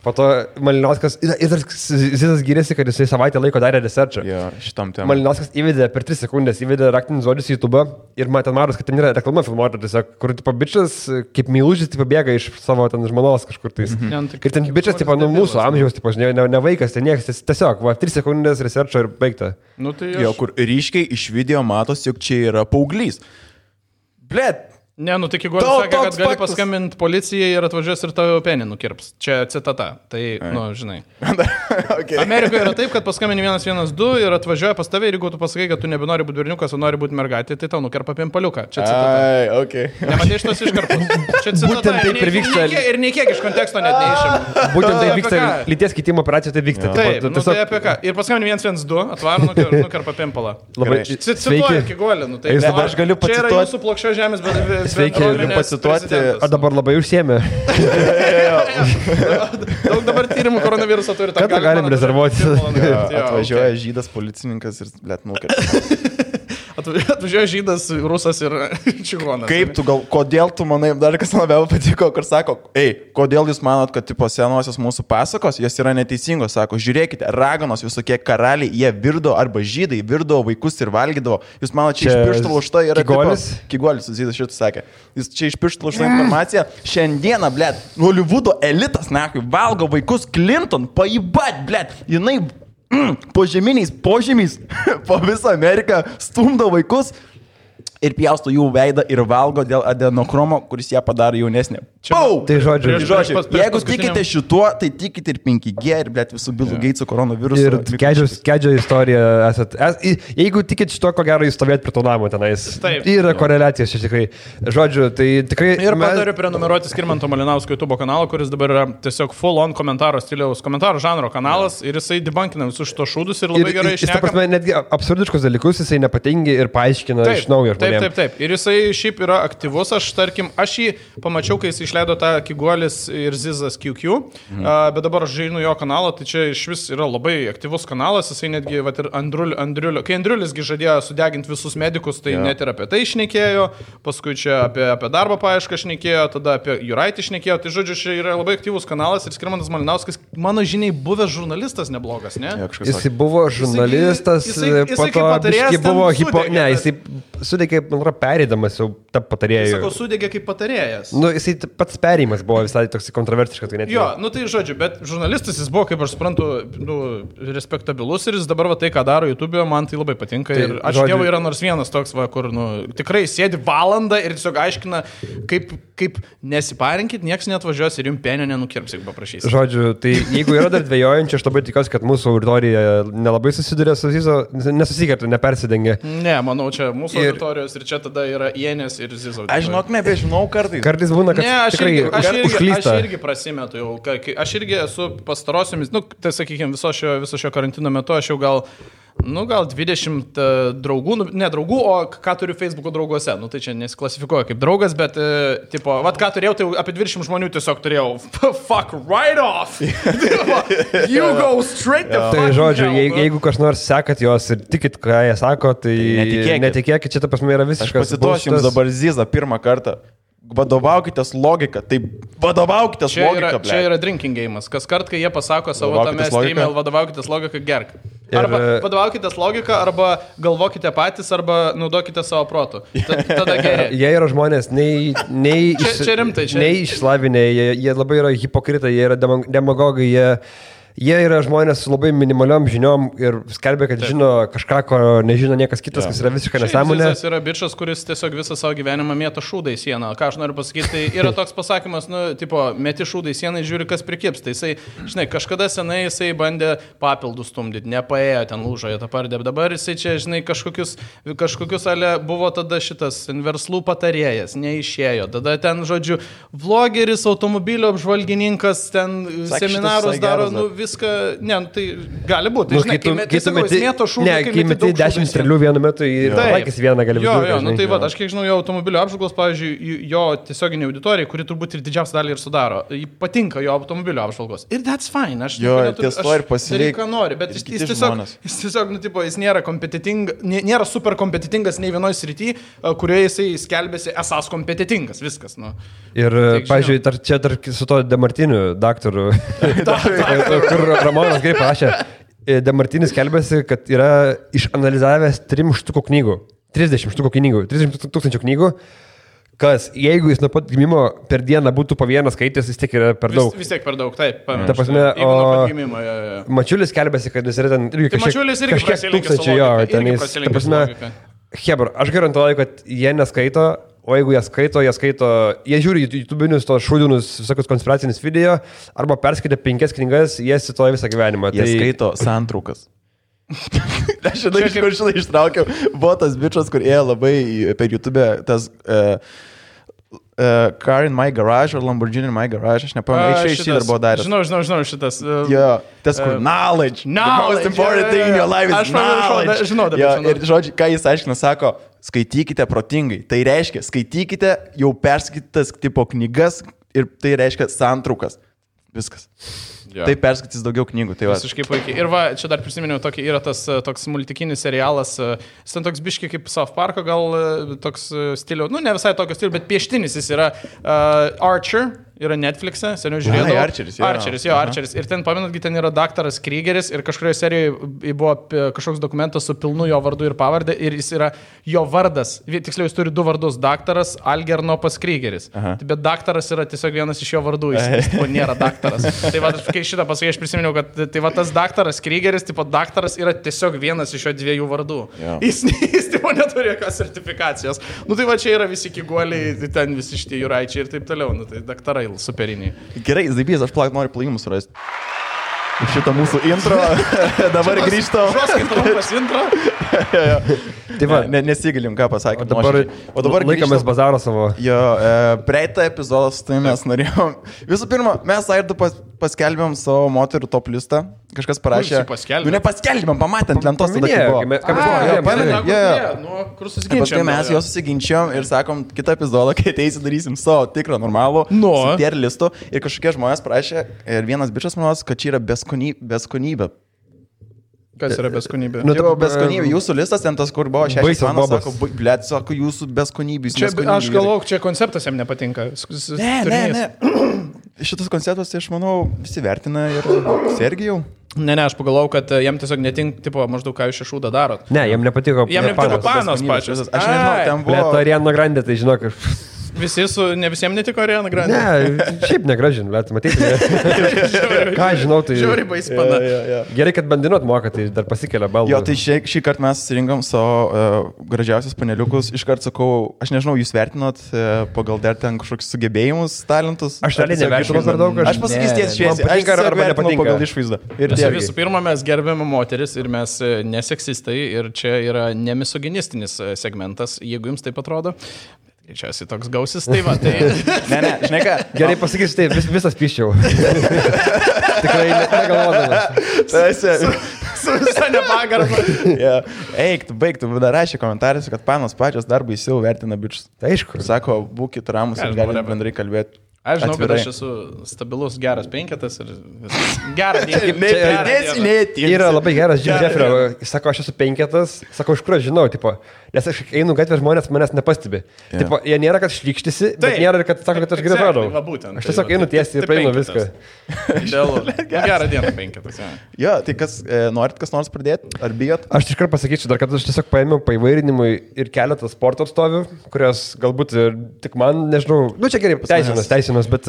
Po to Malinauskas, ir Zizas gyrėsi, kad jisai savaitę laiko darė researchą. Jo, šitam temam. Malinauskas įvedė per 3 sekundės, įvedė raktinį žodžius į YouTube ir man ten maros, kad ten yra reklama filmuota, tiesiog, kur tipo bičias, kaip meilužis, tipo bėga iš savo ten žmonos kažkur tais. Ir ten bičias, tipo, nu mūsų amžiaus, tipo, ne vaikas, ten niekas, tiesiog, 3 sekundės researcho ir baigta. Nu, tai Jo, kur ryškiai iš video matos, jog čia yra paauglys. Blet. Ne, nu tik Igoris sakė, kad gali paskambinti policijai ir atvažiuos ir tavo penį nukirps. Čia citata. Tai, nu, žinai. Okay. Amerikoje yra taip, kad paskambini 112 ir atvažiuoja pas tave ir jeigu tu pasakai, kad tu nebenori būti berniukas, o nori būti mergaitė, tai tau nukerpa pimpaliuką. Čia citata. Okay. Nematai šitos iškarpos. Čia citata. Būtent taip ir vyksta. Ir nei kiek iš konteksto net neišėm. Būtent tai vyksta, lyties keitimo operacija tai vyksta. Taip, nu, tai apie ką. Ir paskambini 112, atvaro nukerpa pimpalą. Labai Cituoju Igorį, nu tai. Aš galiu Čia yra pacituoti. jūsų plokščio žemės, bet Sveiki, galiu pacituoti. O dabar labai užsiemė. Daug dabar tyrimų koronaviruso turi. Kada galim rezervuoti? Atvažiuoja žydas policininkas ir blet nukerta. Atvažiuoja žydas, rusas ir čigonas. Kaip tu kodėl tu manai, dar kas labiau patiko, kur sako, kodėl jūs manot, kad tipo senosios mūsų pasakos, jos yra neteisingos, sako, žiūrėkite, raganos visokie karaliai, jie virdo arba žydai, virdo vaikus ir valgydavo. Jūs manot, čia iš pirštų laužta yra Kigolis? Kigolis, Zydas šitą sakė. Jis čia iš pirštų laužta informacija. Šiandieną, blet, Holivudo elitas, nahui, valgo vaikus Clinton, paibat, blet, jinai požeminiais požemiais po visą Ameriką stumdo vaikus ir pjausto jų veidą ir valgo dėl adenokromo, kuris ją padaro jaunesnė. Tai žodžiu, jeigu tikite šituo, tai tikite ir 5G, ir blėt visų Bilų Geitsų koronavirusų. Ir kedžio istorija esat. Jeigu tikit šito, ko gero jūs stovėt prie to namo tenais. Taip. Yra koreliacijos čia tikrai. Žodžiu, tai tikrai... Ir patariu prenumeruoti Skirmanto Malinausko YouTube kanalą, kuris dabar yra tiesiog full on komentaro stiliaus, komentaro žanro kanalas ir jisai debunkina visus šitos šūdus ir labai gerai išneka. Jis, ta prasme, netgi absurdiškus dalykus jisai nepatingi ir paaiškina iš naujo. Taip. Ir jisai šiaip yra aktyvus. Aš jį pamačiau, kai jis išleido tą Kigolis ir Zizas QQ, bet dabar aš žainu jo kanalą, tai čia iš vis yra labai aktyvus kanalas. Jisai netgi, vat, ir Andriulio, kai Andriulisgi žadėjo sudeginti visus medikus, tai net ir apie tai šnekėjo, paskui čia apie darbo paiešką šnekėjo, tada apie Juraitį šnekėjo. Tai žodžiu, čia yra labai aktyvus kanalas ir Skirmantas Malinauskas, mano žiniai, buvęs žurnalistas neblogas, ne? Jisai buvo žurnalistas, po to biški buvo jisai sudegė, man atrodo, perėdamas jau tą patarėjų. Jis sako, sudegė kaip patarėjas. Nu, jisai pats perėjimas buvo visai toks kontroversiškas. Tai net jo, nu tai žodžiu, bet žurnalistas jis buvo, kaip aš suprantu, respektabilus ir jis dabar va tai, ką daro YouTube, man tai labai patinka. Tai, ir aš Dievo yra nors vienas toks, va, kur tikrai sėdi valandą ir tiesiog aiškina, kaip nesiparinkit, nieks neatvažiuos ir jums penio nenukirps, jeigu paprašysit. Žodžiu, tai jeigu yra dar dvejojančių, aš labai tikiuosi, kad mūsų auditorija nelabai susiduria su Zizo, nesusikertų, nepersidengia. Ne, manau, čia mūsų auditorijos ir čia tada yra Jenės ir Zizo. Aš žinok, nebežinau kartais. Kartais būna, kad tikrai užklysta. Aš irgi prasimetu jau. Aš irgi esu pastarosiomis, tai sakykime, viso šio karantino metu aš jau gal 20 draugų, ne draugų, o ką turiu Facebook'o drauguose. Nu, tai čia nesiklasifikuoja kaip draugas, bet, tipo, vat ką turėjau, tai apie 20 žmonių tiesiog turėjau. Fuck right off! You go straight the fuck. Tai žodžiu, jeigu kas nors sekat jos ir tikit, ką jie sako, tai netikėkit, čia ta prasme yra visiškas. Aš pacituosiu jums dabar Zizą pirmą kartą. Vadovaukitės logiką, tai vadovaukitės logiką. Čia yra drinking game'as. Kas kart, kai jie pasako savo tame stream'e, vadovaukitės logiką, gerk. Arba vadovaukitės logiką, arba galvokite patys, arba naudokite savo protų. Tada geriau. Jie yra žmonės, nei išslavinę, jie labai yra hipokritai, jie yra demagogai, jie yra žmonės su labai minimaliom žiniom ir skelbia, kad žino kažką, ko nežino niekas kitas, kas yra visiškai nesąmonė. Jis yra bičas, kuris tiesiog visą savo gyvenimą mėto šūdą į sieną. Ką aš noriu pasakyti, tai yra toks pasakymas, tipo, meti šūdą į sieną ir žiūri, kas prikips. Tai jisai, žinai, kažkada senai jisai bandė papildus stumdyti, nepaėjo ten lūžoje tą pardė. Dabar jisai čia, žinai, kažkokius ale buvo tada šitas verslų patarėjas, neišėjo. Tada ten, žodžiu, vlogeris, automobilio apžvalgininkas, ten seminarus daro, viską, ne, nu, tai gali būti. Žinai, kai meti 10 strėlių vienu metu ir laikys vieną gali būti. Jo, nu tai va, aš kiek žinau, jo automobilio apžvalgos, pavyzdžiui, jo tiesioginiai auditorijai, kuri turbūt ir didžiausią dalį ir sudaro, patinka jo automobilio apžvalgos. Ir that's fine, aš pasirinkti, ką nori, bet jis tiesiog, nu, tipo, jis nėra kompetitingas, nėra super kompetitingas nei vienoje srityje, kurioje jisai skelbėsi esas kompetitingas, viskas. Nu. Ir, pavyzdžiui, čia dar su to Demartiniu daktaru, kur Ramonas gerai parašė, Demartinis skelbėsi, kad yra išanalizavęs 3 štukų knygų, 30 štukų knygų, 30 tūkstančių knygų, kas, jeigu jis nuo pat gimimo per dieną būtų po vieną skaitęs, vis tiek yra per daug. Vis tiek per daug, taip. Ta prasme, Mačiulis skelbėsi, kad jis yra ten irgi kažkiek tūkstančių, jo, ten jis, ta prasme, hebra, aš garantuoju, kad jie neskaito. O jeigu jie skaito, jie žiūri YouTube'inius tos šūdinus visokius konspiracinius video, arba perskaitė 5 knygas, jie cituoja visą gyvenimą. Jie skaito santraukas. Aš žinai, ištraukiau, buvo tas bičas, kur ėjo labai per YouTube, tas Car in my garage ar Lamborghini in my garage, aš nepamenu, iš dar buvo daręs. Žinau, šitas. Jo, tas kur knowledge, the most important thing in your life is knowledge. Aš žinau. Ir žodžiu, ką jis aiškina, sako, skaitykite protingai. Tai reiškia, skaitykite jau perskaitytas tipo knygas ir tai reiškia santraukas. Viskas. Ja. Tai perskaitys daugiau knygų. Tai visiškai puikiai. Ir va, čia dar prisiminiau, yra tas toks multikinis serialas, jis ten toks biškiai kaip South Parko, gal toks stilių, nu ne visai tokio stilių, bet pieštinis jis yra Archer. Yra Netflix'e, seniau žiūrėjau. Archeris. Ir ten, pamenatgi, ten yra daktaras Kriegeris ir kažkurioje serijoje buvo kažkoks dokumentas su pilnu jo vardu ir pavardė ir jis yra jo vardas. Tiksliau, jis turi 2 vardus - daktaras Algernopas Kriegeris. Bet daktaras yra tiesiog vienas iš jo vardų, jis nėra daktaras. Tai va, kai šitą pasakai, aš prisiminiau, kad tai va tas daktaras Kriegeris, tipo daktaras yra tiesiog vienas iš jo 2 vardų. Jis tipo neturi jokios sertifikacijos. Nu tai va, čia yra visi kiguoliai, ten visi šitie jūraičiai ir taip toliau. Nu tai daktarai. Superiniai. Gerai, Zaibys, aš noriu plajimus surasti. Šitą mūsų intro. Dabar grįžtam. Žoskit trumpas intro. Tai va, nesigilim, ką pasakė. O dabar laikomės bazaro savo. Jo, praeitą epizodą su tai mes norėjom. Visų pirma, mes Aidu paskelbėm savo moterų top listą. Kažkas parašė. Nu, nepaskelbėm, pamatėm lentos tada, kai buvo. Paskui mes jo susiginčiom ir sakom, kitą epizodą, kai ateisi, darysim savo tikrą normalų tier listų. Ir kažkokie žmonės parašė, ir vienas bičas manos, kad čia yra beskonybė. Kas yra beskonybė? Nu, tai buvo beskonybė. Jūsų listas ten tas, kur buvo 6 valandos, sako, jūsų beskonybės. Aš galvoju, čia konceptas jam nepatinka. Ne. Šitas konceptas, tai aš manau, visi vertina ir Sergijau. Ne, aš pagalvojau, kad jam tiesiog netink, tipo, maždaug ką jūs šešūdą darot. Ne, jam nepatiko. Jam nepatiko panos pačios. Aš nežinau, ten buvo. Lieto Ariana Grande, tai žinok. Ne visiems netiko Ariana Grande. Ne, šiaip negražin, bet matyti. Ką žinau, tai... Žiauriai baispana. Gerai, kad bandinot moka, tai dar pasikelia baldą. Jo, tai šį kartą mes surinkom savo gražiausius paneliukus. Iškart sakau, aš nežinau, jūs vertinot pagal dar ten kažkokius sugebėjimus, talentus. Aš realiai nevertinu per daug. Aš pasakysiu tiesiai šviesiai. Aš arba nepatinka pagal išvaizdą. Visų pirma, mes gerbėme moteris ir mes neseksistai ir čia yra nemisoginistinis segmentas, jeigu jums taip atrodo. Čia esi toks gausis, tai va, tai... Ne, žinai ką. Gerai pasakysiu, tai visas piščiau. Tikrai negalvodamas. Su visą nepagarbą. Eik, tu baig, tu dar rašė komentaruose, kad panos pačios dar baisiau vertina bičius. Tai aišku. Sako, būkit ramus ir galime bendrai kalbėti. Aš žinau, kad aš esu stabilus, geras 5 ir gerą dieną. Yra labai geras Jim Jeffrey. Sako, aš esu 5, sako, iš kur aš žinau, tipo, nes aš einu gatvę, žmonės manęs nepastebi. Tipo, jie nėra, kad šlykštisi, bet nėra, kad sako, kad aš gerai atrodau. Aš tiesiog einu tiesiai ir praeinu viską. Gerą dieną 5. Jo, tai kas nors pradėti? Ar bijot? Aš iškart pasakyčiau dar, kad aš tiesiog paėmiau paįvairinimui ir keletą sporto atstovių, kurios galbūt tik man, nežinau, nu čia gerai, teisinas, bet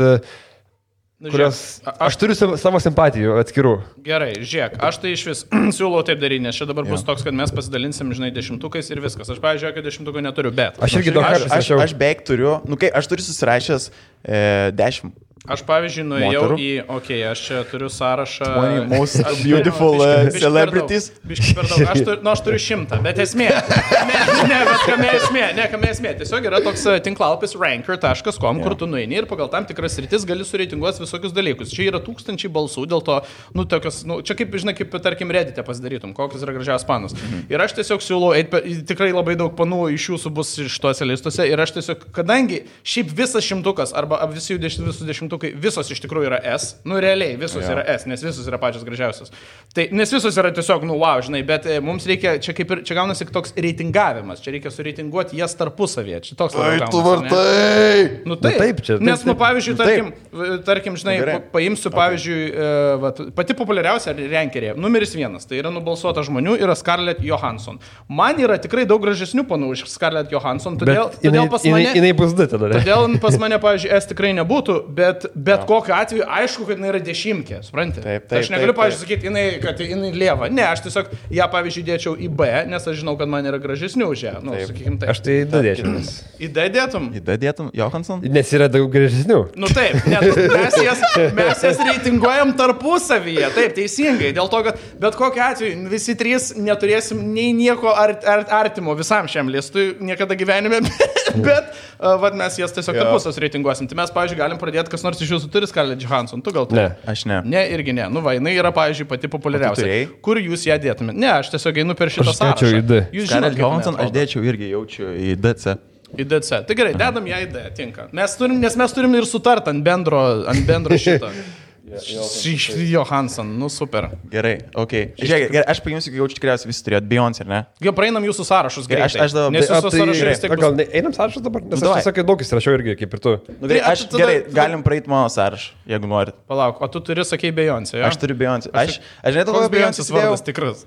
kurios aš turiu savo simpatijų atskirų. Gerai, žiūrėk, aš tai iš vis siūlau taip daryti, nes čia dabar bus toks, kad mes pasidalinsim, žinai, 10 ir viskas. Aš, pavyzdžiui, kad 10 neturiu, bet... Aš irgi daug kartų aš beveik turiu, nu kai aš turiu susirašęs 10 Aš, pavyzdžiui, nuėjau aš čia turiu sąrašą. 20 most beautiful celebrities. Biški per daug. Aš turiu 100, bet esmė. Bet kame esmė. Tiesiog yra toks tinklalapis ranker.com, kur tu nueini ir pagal tam tikras sritis gali sureitinguoti visokius dalykus. Čia yra 1000 balsų, dėl to, tokios, čia kaip, žinai, kaip, tarkim, Reddit'e pasidarytum, kokios yra gražiausios panos. Ir aš tiesiog siūlau, tikrai labai daug panų iš jūsų bus iš tuose listuose. Ir aš tiesiog, kadangi šiaip visas 100 arba visi 10 visos iš tikrųjų yra S, realiai visos yra S, nes visos yra pačios gražiausios. Tai, nes visos yra tiesiog, wow, žinai, bet mums reikia, čia gaunasi toks reitingavimas, čia reikia sureitinguoti jas tarpusavėje, čia toks labai gaunasi. Tu vartai! Taip, čia. Nes, pavyzdžiui, tarkim, žinai, paimsiu, pavyzdžiui, pati populiariausia rankerė, numeris 1, tai yra nubalsuota žmonių, yra Scarlett Johansson. Man yra tikrai daug gražesnių panų iš Scarlett Johansson, todėl pas mane... Jinai bus du tada. Todėl pas mane, pavyzdžiui, S tikrai nebūtų, bet kokiu atveju aišku, kad jinai yra 10, supranti? Taip. Aš negaliu, pavyzdžiui, sakyti, kad jinai lieva. Ne, aš tiesiog ją, pavyzdžiui, dėčiau į B, nes aš žinau, kad man yra gražesnių už ją. Sakykim, taip. Aš tai D dėčiau. Į D dėtum? Į D dėtum, Johansson? Nes yra daug gražesnių. Taip, mes jas reitinguojam tarpusavyje, taip, teisingai. Dėl to, kad bet kokiu atveju visi 3 neturėsim nei nieko artimo visam šiam listui niekada gyvenime, bet mes jas tiesiog tarpusas reitinguosim. Tai mes, pavyzdžiui, galim pradėti, kas nors iš jūsų turi Scarlett Johansson, tu gal turi? Ne, aš ne. Ne, irgi ne. Jinai yra, pavyzdžiui, pati populiariausia. Kur jūs ją dėtumėte? Ne, aš tiesiog einu per šitą sąrašą. Aš dėčiau į D. Scarlett Johansson aš dėčiau irgi jaučiu į DC. Į DC. Tai gerai, dedam ją į D, tinka. Nes mes turim ir sutart ant bendro šito. Johansson, super. Gerai, Žiūrėk, aš paimsiu, kai jaučiu tikriausiai visi turėjot Beyoncé, ar ne? Jau praeinam jūsų sąrašus greitai. Aš dabar... Nes jūsų sąrašai vis tiek... Gal einam sąrašus dabar? Nes aš sakai, daug įsirašiau irgi, kaip ir tu. Gerai, galim praeiti mano sąrašą, jeigu norit. Palauk, o tu turi, sakei, Beyoncé, jo? Aš turiu Beyoncé. Aš žinai, koks Beyoncés vardas tikras?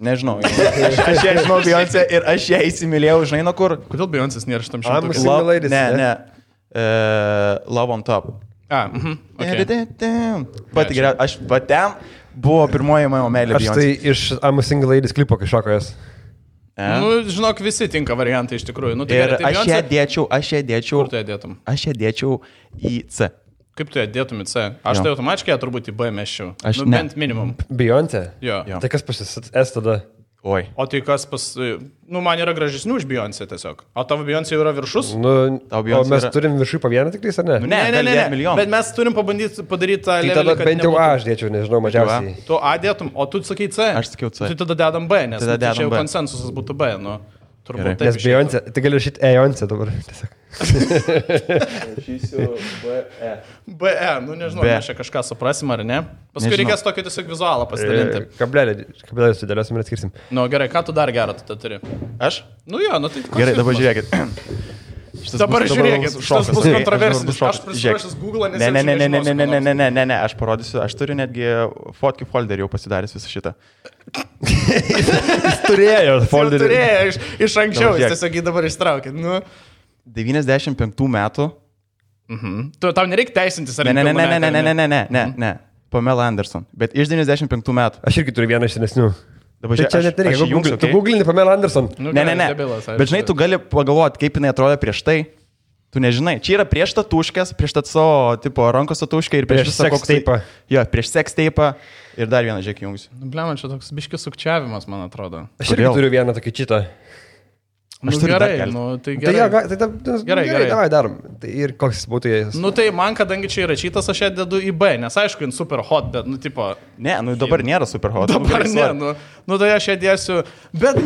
Nežinau. Aš ją žinau Beyoncé ir aš ją įsimylėjau, žinai, nuo kur? Kodėl Beyoncés nėra šitam šimtukui? Ne. Love on Top. Pati geriausia, aš patem buvo pirmoji mano meilė Beyoncé. Aš tai iš I'm a Single Ladies klipo kažkokio jas. Žinok, visi tinka variantai iš tikrųjų. Ir aš ją dėčiau. Kur tu ją dėtum? Aš ją dėčiau į C. Kaip tu ją dėtum į C? Aš tai automatiškai turbūt į B meščiau. Bent minimum. Beyoncé? Jo. Tai kas pasis S tada? Oi. O tai kas man yra gražesnių už Beyoncé tiesiog. O tavo Beyoncé yra viršus? O mes turim viršui po vieną tik tais, ar ne? Ne. Bet mes turim pabandyti padaryti tą levelį. Tai tada bent jau A aš dėčiau, nežinau, mažiausiai. Tu A dėtum, o tu sakai C? Aš sakiau C. Tai tada dedam B, nes čia jau konsensusas būtų B, turbūt taip. Nes Beyoncé, tai gali rašyti Beyoncé dabar. Rašysiu BE. BE, nežinau, mes čia kažką suprasim ar ne. Paskui reikės tokį tiesiog vizualą pasidalinti. Kabelį sudėliosim ir atskirsim. Gerai, ką tu dar gerą tu turi? Aš? Tai gerai, dabar žiūrėkit. Dabar žiūrėkit, šitas bus kontroversinis. Aš prisiprašęs Google, nes Ne, aš parodysiu, aš turiu netgi fotkių folderį jau pasidaręs visą šitą. Jis turėjo folderį. Turėjo iš anksčiau, jis tiesiog jį dabar ištraukė. 95 metų. Tau nereikia teisintis ar Ne. Pamela Anderson. Bet iš 95 metų. Aš irgi turiu vieną iš senesnių. Dabar čia net nereikia. Tu googlini Pamela Anderson. Ne. Bet žinai, tu gali pagalvoti, kaip jinai atrodo prieš tai. Tu nežinai. Čia yra prieš tatuškės, prieš savo tipo rankos tatuškę ir prieš visą sex tape. Jo, prieš sex tape ir dar vieną žiūrėk jungus. Bliam, čia toks biškis sukčiavimas, man atrodo. Aš irgi turiu vieną tokį čitą. Gerai, tai gerai. Gerai, davai darom. Tai ir koks būtų jis? Tai man, kadangi čia yra čytas, aš ją dedu į B, nes aišku, jin super hot, bet, tipo... Ne, dabar nėra super hot. Dabar ne, tai aš ją dėsiu, bet,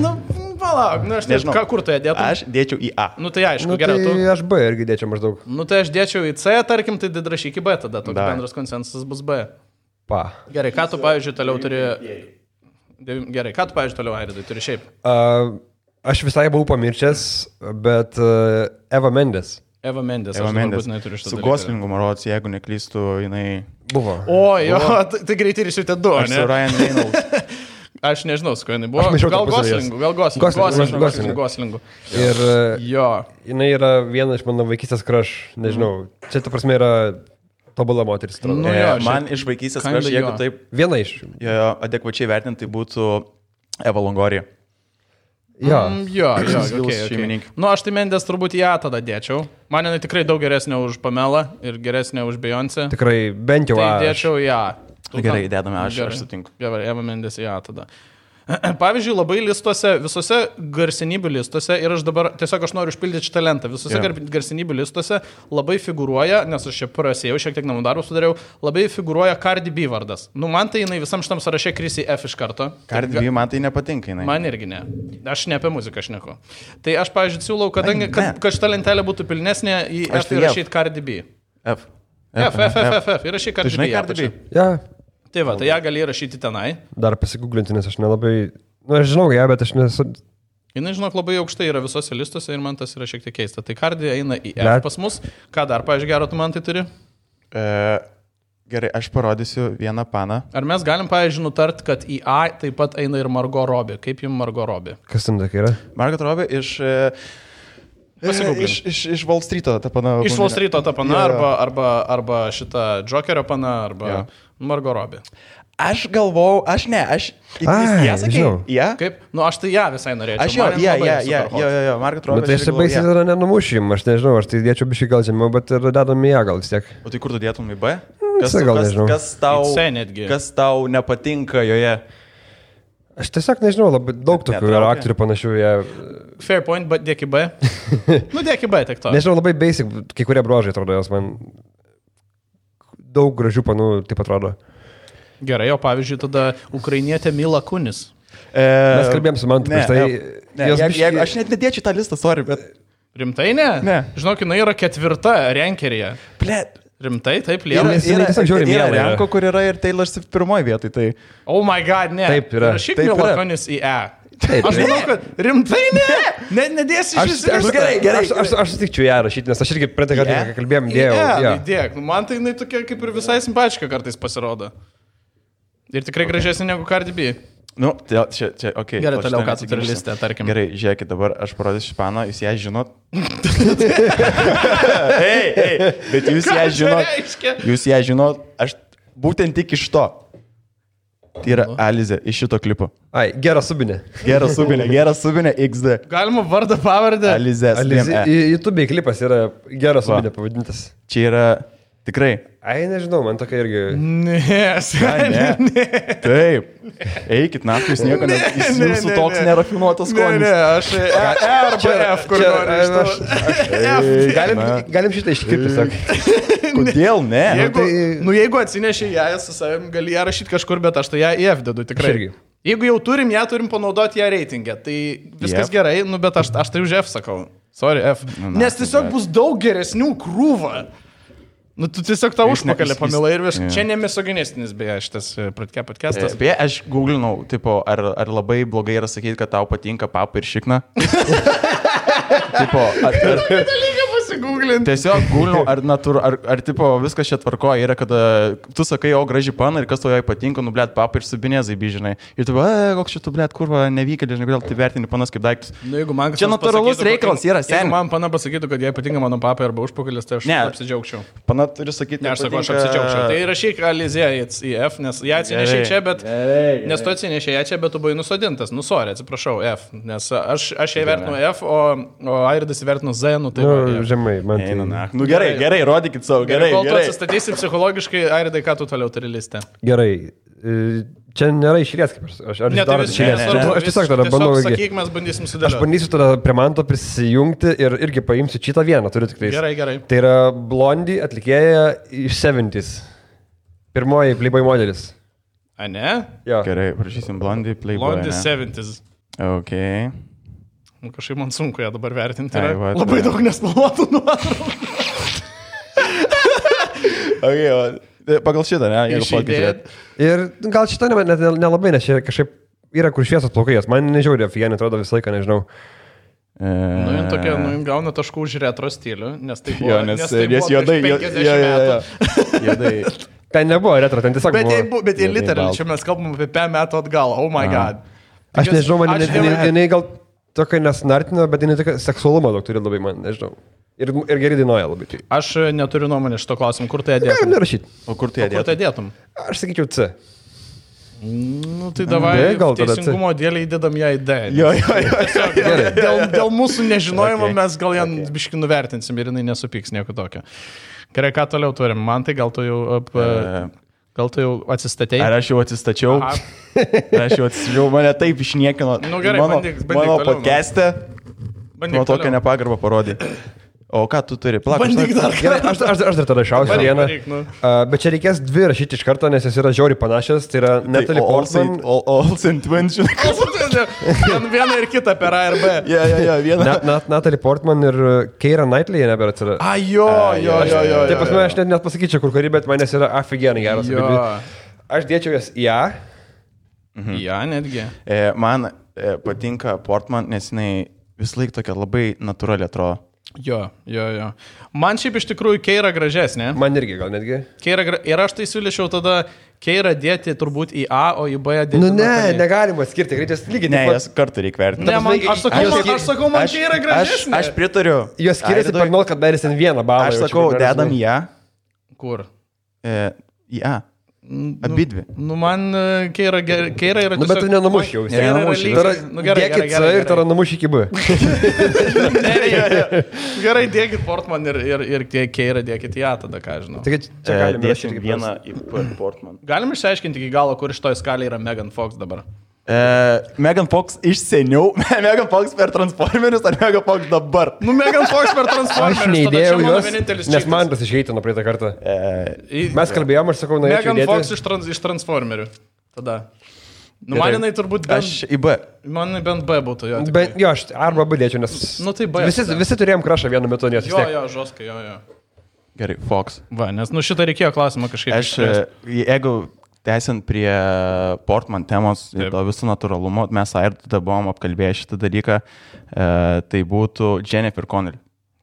palauk, aš nežinau, kur tu ją dėtum? Aš dėčiau į A. Tai aišku, gerai, tu... Tai aš B irgi dėčiau maždaug. Tai aš dėčiau į C, tarkim, tai rašyk į B, tada toks bendras konsensusas bus B. Gerai, ką tu, pavyzdžiui, toliau turi... Gerai, ką tu, pavyzdžiui, toliau, Airidai, turi šiaip? Aš visai buvau pamiršęs, bet Eva Mendes. Eva Mendes. Su Goslingu, marods, jeigu neklystu, jinai... Buvo. Jo, tai greitai ir šitie du, ne? Su Ryan Reynolds. Aš nežinau, su kuo jinai buvo. Gal Goslingu. Ir jo. Jinai yra viena iš mano vaikystės crush, nežinau. Čia ta prasme yra tobula moteris. Man iš vaikystės crush, jeigu taip... Viena iš. Jo, adekvačiai vertinti, tai būtų Eva Longoria. Jo. Jo, okay. Nu, aš tai Mendes turbūt į A tada dėčiau. Man jinai tikrai daug geresnė už Pamelą ir geresnė už Beyoncé. Tikrai, bent jau tai dėčiau į A. Gerai, dėdame, aš sutinku. Gerai, Eva Mendes į A tada. Pavyzdžiui, labai listuose, visose garsenybių listuose, ir aš dabar tiesiog noriu užpildyti šitą lentą, visose garsenybių listuose labai figūruoja, nes aš čia prasėjau, šiek tiek namų darbų sudariau, labai figūruoja Cardi B vardas. Nu, man tai jinai visam šitam sąraše krisi F iš karto. Cardi B man tai nepatinka, jinai. Man irgi ne. Aš ne apie muziką šneku. Tai aš, pavyzdžiui, siūlau, kad šita lentelė būtų pilnesnė, į F įrašyti Cardi B. F. Įrašyti Cardi B. Žinai Cardi B? Ja. Tai va, tai ją gali rašyti tenai. Dar pasigūglinti, nes aš nelabai... Nu, aš žinau ją, bet aš nesu... Jinai, žinok, labai aukštai yra visose listuose ir man tas yra šiek tiek keista. Tai Cardi eina į F pas mus. Ką dar, pavyzdžiui, gero tu man tai turi? Gerai, aš parodysiu vieną paną. Ar mes galim, pavyzdžiui, nutart, kad į A taip pat eina ir Margot Robbie? Kaip jums Margot Robbie? Kas ten tokia yra? Margot Robbie iš Wall Street'o ta pana. Iš Wall Street'o ta pana, arba šita Jokerio pana, arba Margot Robbie. Aš galvau, aš ją sakiau. Ja? Kaip? Nu, aš tai ją visai norėčiau. Aš jo, Margot Robbie. Bet tai aš čia baisiai tada nenumušim, aš nežinau, aš tai dėčiau biškai gal žemiau, bet ir dedam į ją gal vis tiek. O tai kur tu dėtum į B? Kas tau nepatinka joje? Aš tiesiog nežinau, labai daug tokių yra aktorių panašių. Fair point, bet dėk į B. Nu, dėk į B, tik to. Nežinau, labai basic, kai kurie bruožai atrodo, jos man daug gražių panų taip atrodo. Gerai, o pavyzdžiui, tada ukrainietė Mila Kunis. Mes kalbėjom su Mantu prieš tai. Aš net nedėčiau tą listą, sorry, bet... Rimtai ne? Ne. Žinok, jinai yra 4 renkeryje. Blet. Rimtai, taip, liela. Yra Renko, kur yra ir Taylor Swift pirmoji vietoj, tai... Oh my god, ne. Taip yra. Rašyk Mila Kunis į E. Aš manau, kad rimtai ne. Nedėsi iš visų. Gerai. Aš sutikčiau ją rašyti, nes aš irgi praeitą kartą, kai kalbėjom, dėjau. Dėk, man tai jinai tokia kaip ir visai simpatiška kartais pasirodo. Ir tikrai gražesnė negu Cardi B. Nu, čia, okei. Gerai, toliau ką tu turi listę, tarkim. Gerai, žiūrėkit, dabar aš parodysiu Španą, jūs ją žinot. Ei, bet jūs ją žinot, aš būtent tik iš to. Tai yra Alizė iš šito klipo. Ai, Gera Subinė. Gera Subinė XD. Galima vardą pavardę? Alizė. YouTube klipas yra Gera Subinė pavadintas. Čia yra tikrai. Ai, nežinau, man tokia irgi... Ne. Taip. Eikit, naktį, jūs nieko jūsų toks nerafinuotas skonis. Ne, aš arba F, kur nori. Galim šitą iškirpti, sak. Kodėl ne? Jeigu atsinešė ją su savim, gali ją rašyti kažkur, bet aš tai ją į F dedu tikrai. Jeigu jau turim panaudoti ją reitingę, tai viskas gerai, bet aš tai už F sakau. Sorry, F. Nes tiesiog bus daug geresnių krūvą. Nu, tu tiesiog tą užpakalį pamilai ir viskas. Čia nemisoginistinis, beje, šitas podcastas. Beje, aš googlinau, tipo, ar labai blogai yra sakyti, kad tau patinka papa ir šikna. Tipo, tiesiog googlinau, ar tipo, viskas čia tvarkoja yra, kad tu sakai, o graži pana ir kas tau jai patinka, nu, blėt, papa ir su binėzai, žinai. Ir tu, koks šitų, blėt, kurva, nevykėlė, žinai, kodėl tai vertini panas kaip daiktus. Nu, čia natūralus reikalas yra, seniai. Jeigu man pana pasakytų, kad jai patinka mano papa arba užpakalis, tai aš apsidžiaugčiau. Pana turi sakyti, ne, aš sakau, aš apsidžiaugčiau. Tai rašyk Alizė į F, nes ją atsinešė čia, bet... Nes tu atsinešė ją čia, bet tu buvai nusodintas. Nu, sorry, atsiprašau, F. Nes aš ją vertinu F, o Airidas įvertinu Z, nu tai... Žemai, man tai... Nu gerai, rodykit savo, gerai. Kol tu atsistatysi psichologiškai, Airidai, ką tu toliau turi listę? Gerai. Čia nėra išėlės, kaip aš darote išėlės. Aš tiesiog tada bandau... Sakyk, mes bandysim sudėlioti. Aš bandysiu tada prie Manto prisijungti ir irgi paimsiu šitą vieną, turiu tik tais. Gerai. Tai yra Blondie atlikėja iš 70's. Pirmoji Playboy modelis. A, ne? Jo. Gerai, prašysim Blondie Playboy. Blondie 70's. Ok. Kažkaip man sunku ją dabar vertinti. Labai daug nespalvotų nuotraukų. Okay, pagal šitą, ne? Ir gal šitą nelabai, nes čia kažkaip yra kur šviesos plaukai, man nežiaudė, Fienė atrodo visą laiką, nežinau. Nu, jin tokia, gauna taškų už retro stilių, nes tai buvo, nes juodai, 50 juodai. Ten nebuvo retro, ten tiesiog buvo. Bet jie literal, čia mes kalbam apie 5 metų atgal, oh my god. Aš nežinau, man jinai gal tokia nesnartino, bet jinai tokia seksualumo daug turi labai, man nežinau. Ir gerai dainuoja labai. Aš neturiu nuomonės šito klausimu, kur tai dėtum? Galim nerašyti. O kur tai dėtum? Aš sakyčiau C. Nu, tai davai, gal tada teisingumo dėlį įdedam ją į D. Jo. Dėl mūsų nežinojimo mes gal ją biškai nuvertinsim ir jinai nesupyks nieko tokio. Gerai, ką toliau turim? Man tai gal tu jau atsistatei? Ar aš jau atsistačiau? Mane taip išniekino. Nu, gerai, mano podcast'e. Man tokią nepagarbą parodė. O ką tu turi? Bandyk dar. Gerai, aš dar tada šausiu vieną. Bet čia reikės dvi rašyti iš karto, nes jos yra žiauriai panašios. Tai yra Natalie Portman. Olsen Twins, žinai. Viena ir kita per A ir B. Jo, viena. Natalie Portman ir Keira Knightley jie nebėra atsirado. Jo. Taip pas mane aš net pasakyčiau, kur kuri, bet manęs yra aфиgenai geras. Aš dėčiau jas į A. Ja, netgi. Man patinka Portman, nes jinai vis laik tokia labai natūrali atrodo. Jo. Man šiaip iš tikrųjų Keira gražesnė. Man irgi gal netgi. Ir aš tai siūlyčiau tada Keira dėti turbūt į A, o į B dėti. Nu ne, negalima skirti, greitis lygiai. Ne, jas kartu reikia vertinti. Ne, aš sakau, man Keira gražesnė. Aš pritariu. Jos skiriasi per 0,1 balą. Aš sakau, dedam į A. Kur? Į A. Abidvi. Nu, man Keira yra tiesiog... Nu, bet tu nenumuš jau. Dėkit C ir tada numuš iki B. Gerai, dėkit Portman ir Keira dėkit į A tada, ką žinau. Dėsim vieną į Portman. Galim išsiaiškinti iki galo, kur iš toj skalė yra Megan Fox dabar. Megan Fox iš seniau, Megan Fox per Transformerius ar Megan Fox dabar? Nu, Megan Fox per Transformerius. Aš neįdėjau jos, nes man tas išeitino praeitą kartą. Mes kalbėjom, aš sakau, norėčiau įdėti. Megan Fox iš Transformerių. Tada. Nu, man jinai turbūt bent... Aš į B. Man bent B būtų, jo. Jo, aš arba B dėčiau, nes... Nu, tai B. Visi turėjom krašą vienu metu, nes vis tiek. Jo, žoskai, jo. Gerai, Fox. Va, nes nu šitą reikėjo klausimą kažkaip. Jeigu tęsiant prie Portman temos ir to visų natūralumo, mes ir tada buvom apkalbėję šitą dalyką, tai būtų Jennifer Connelly.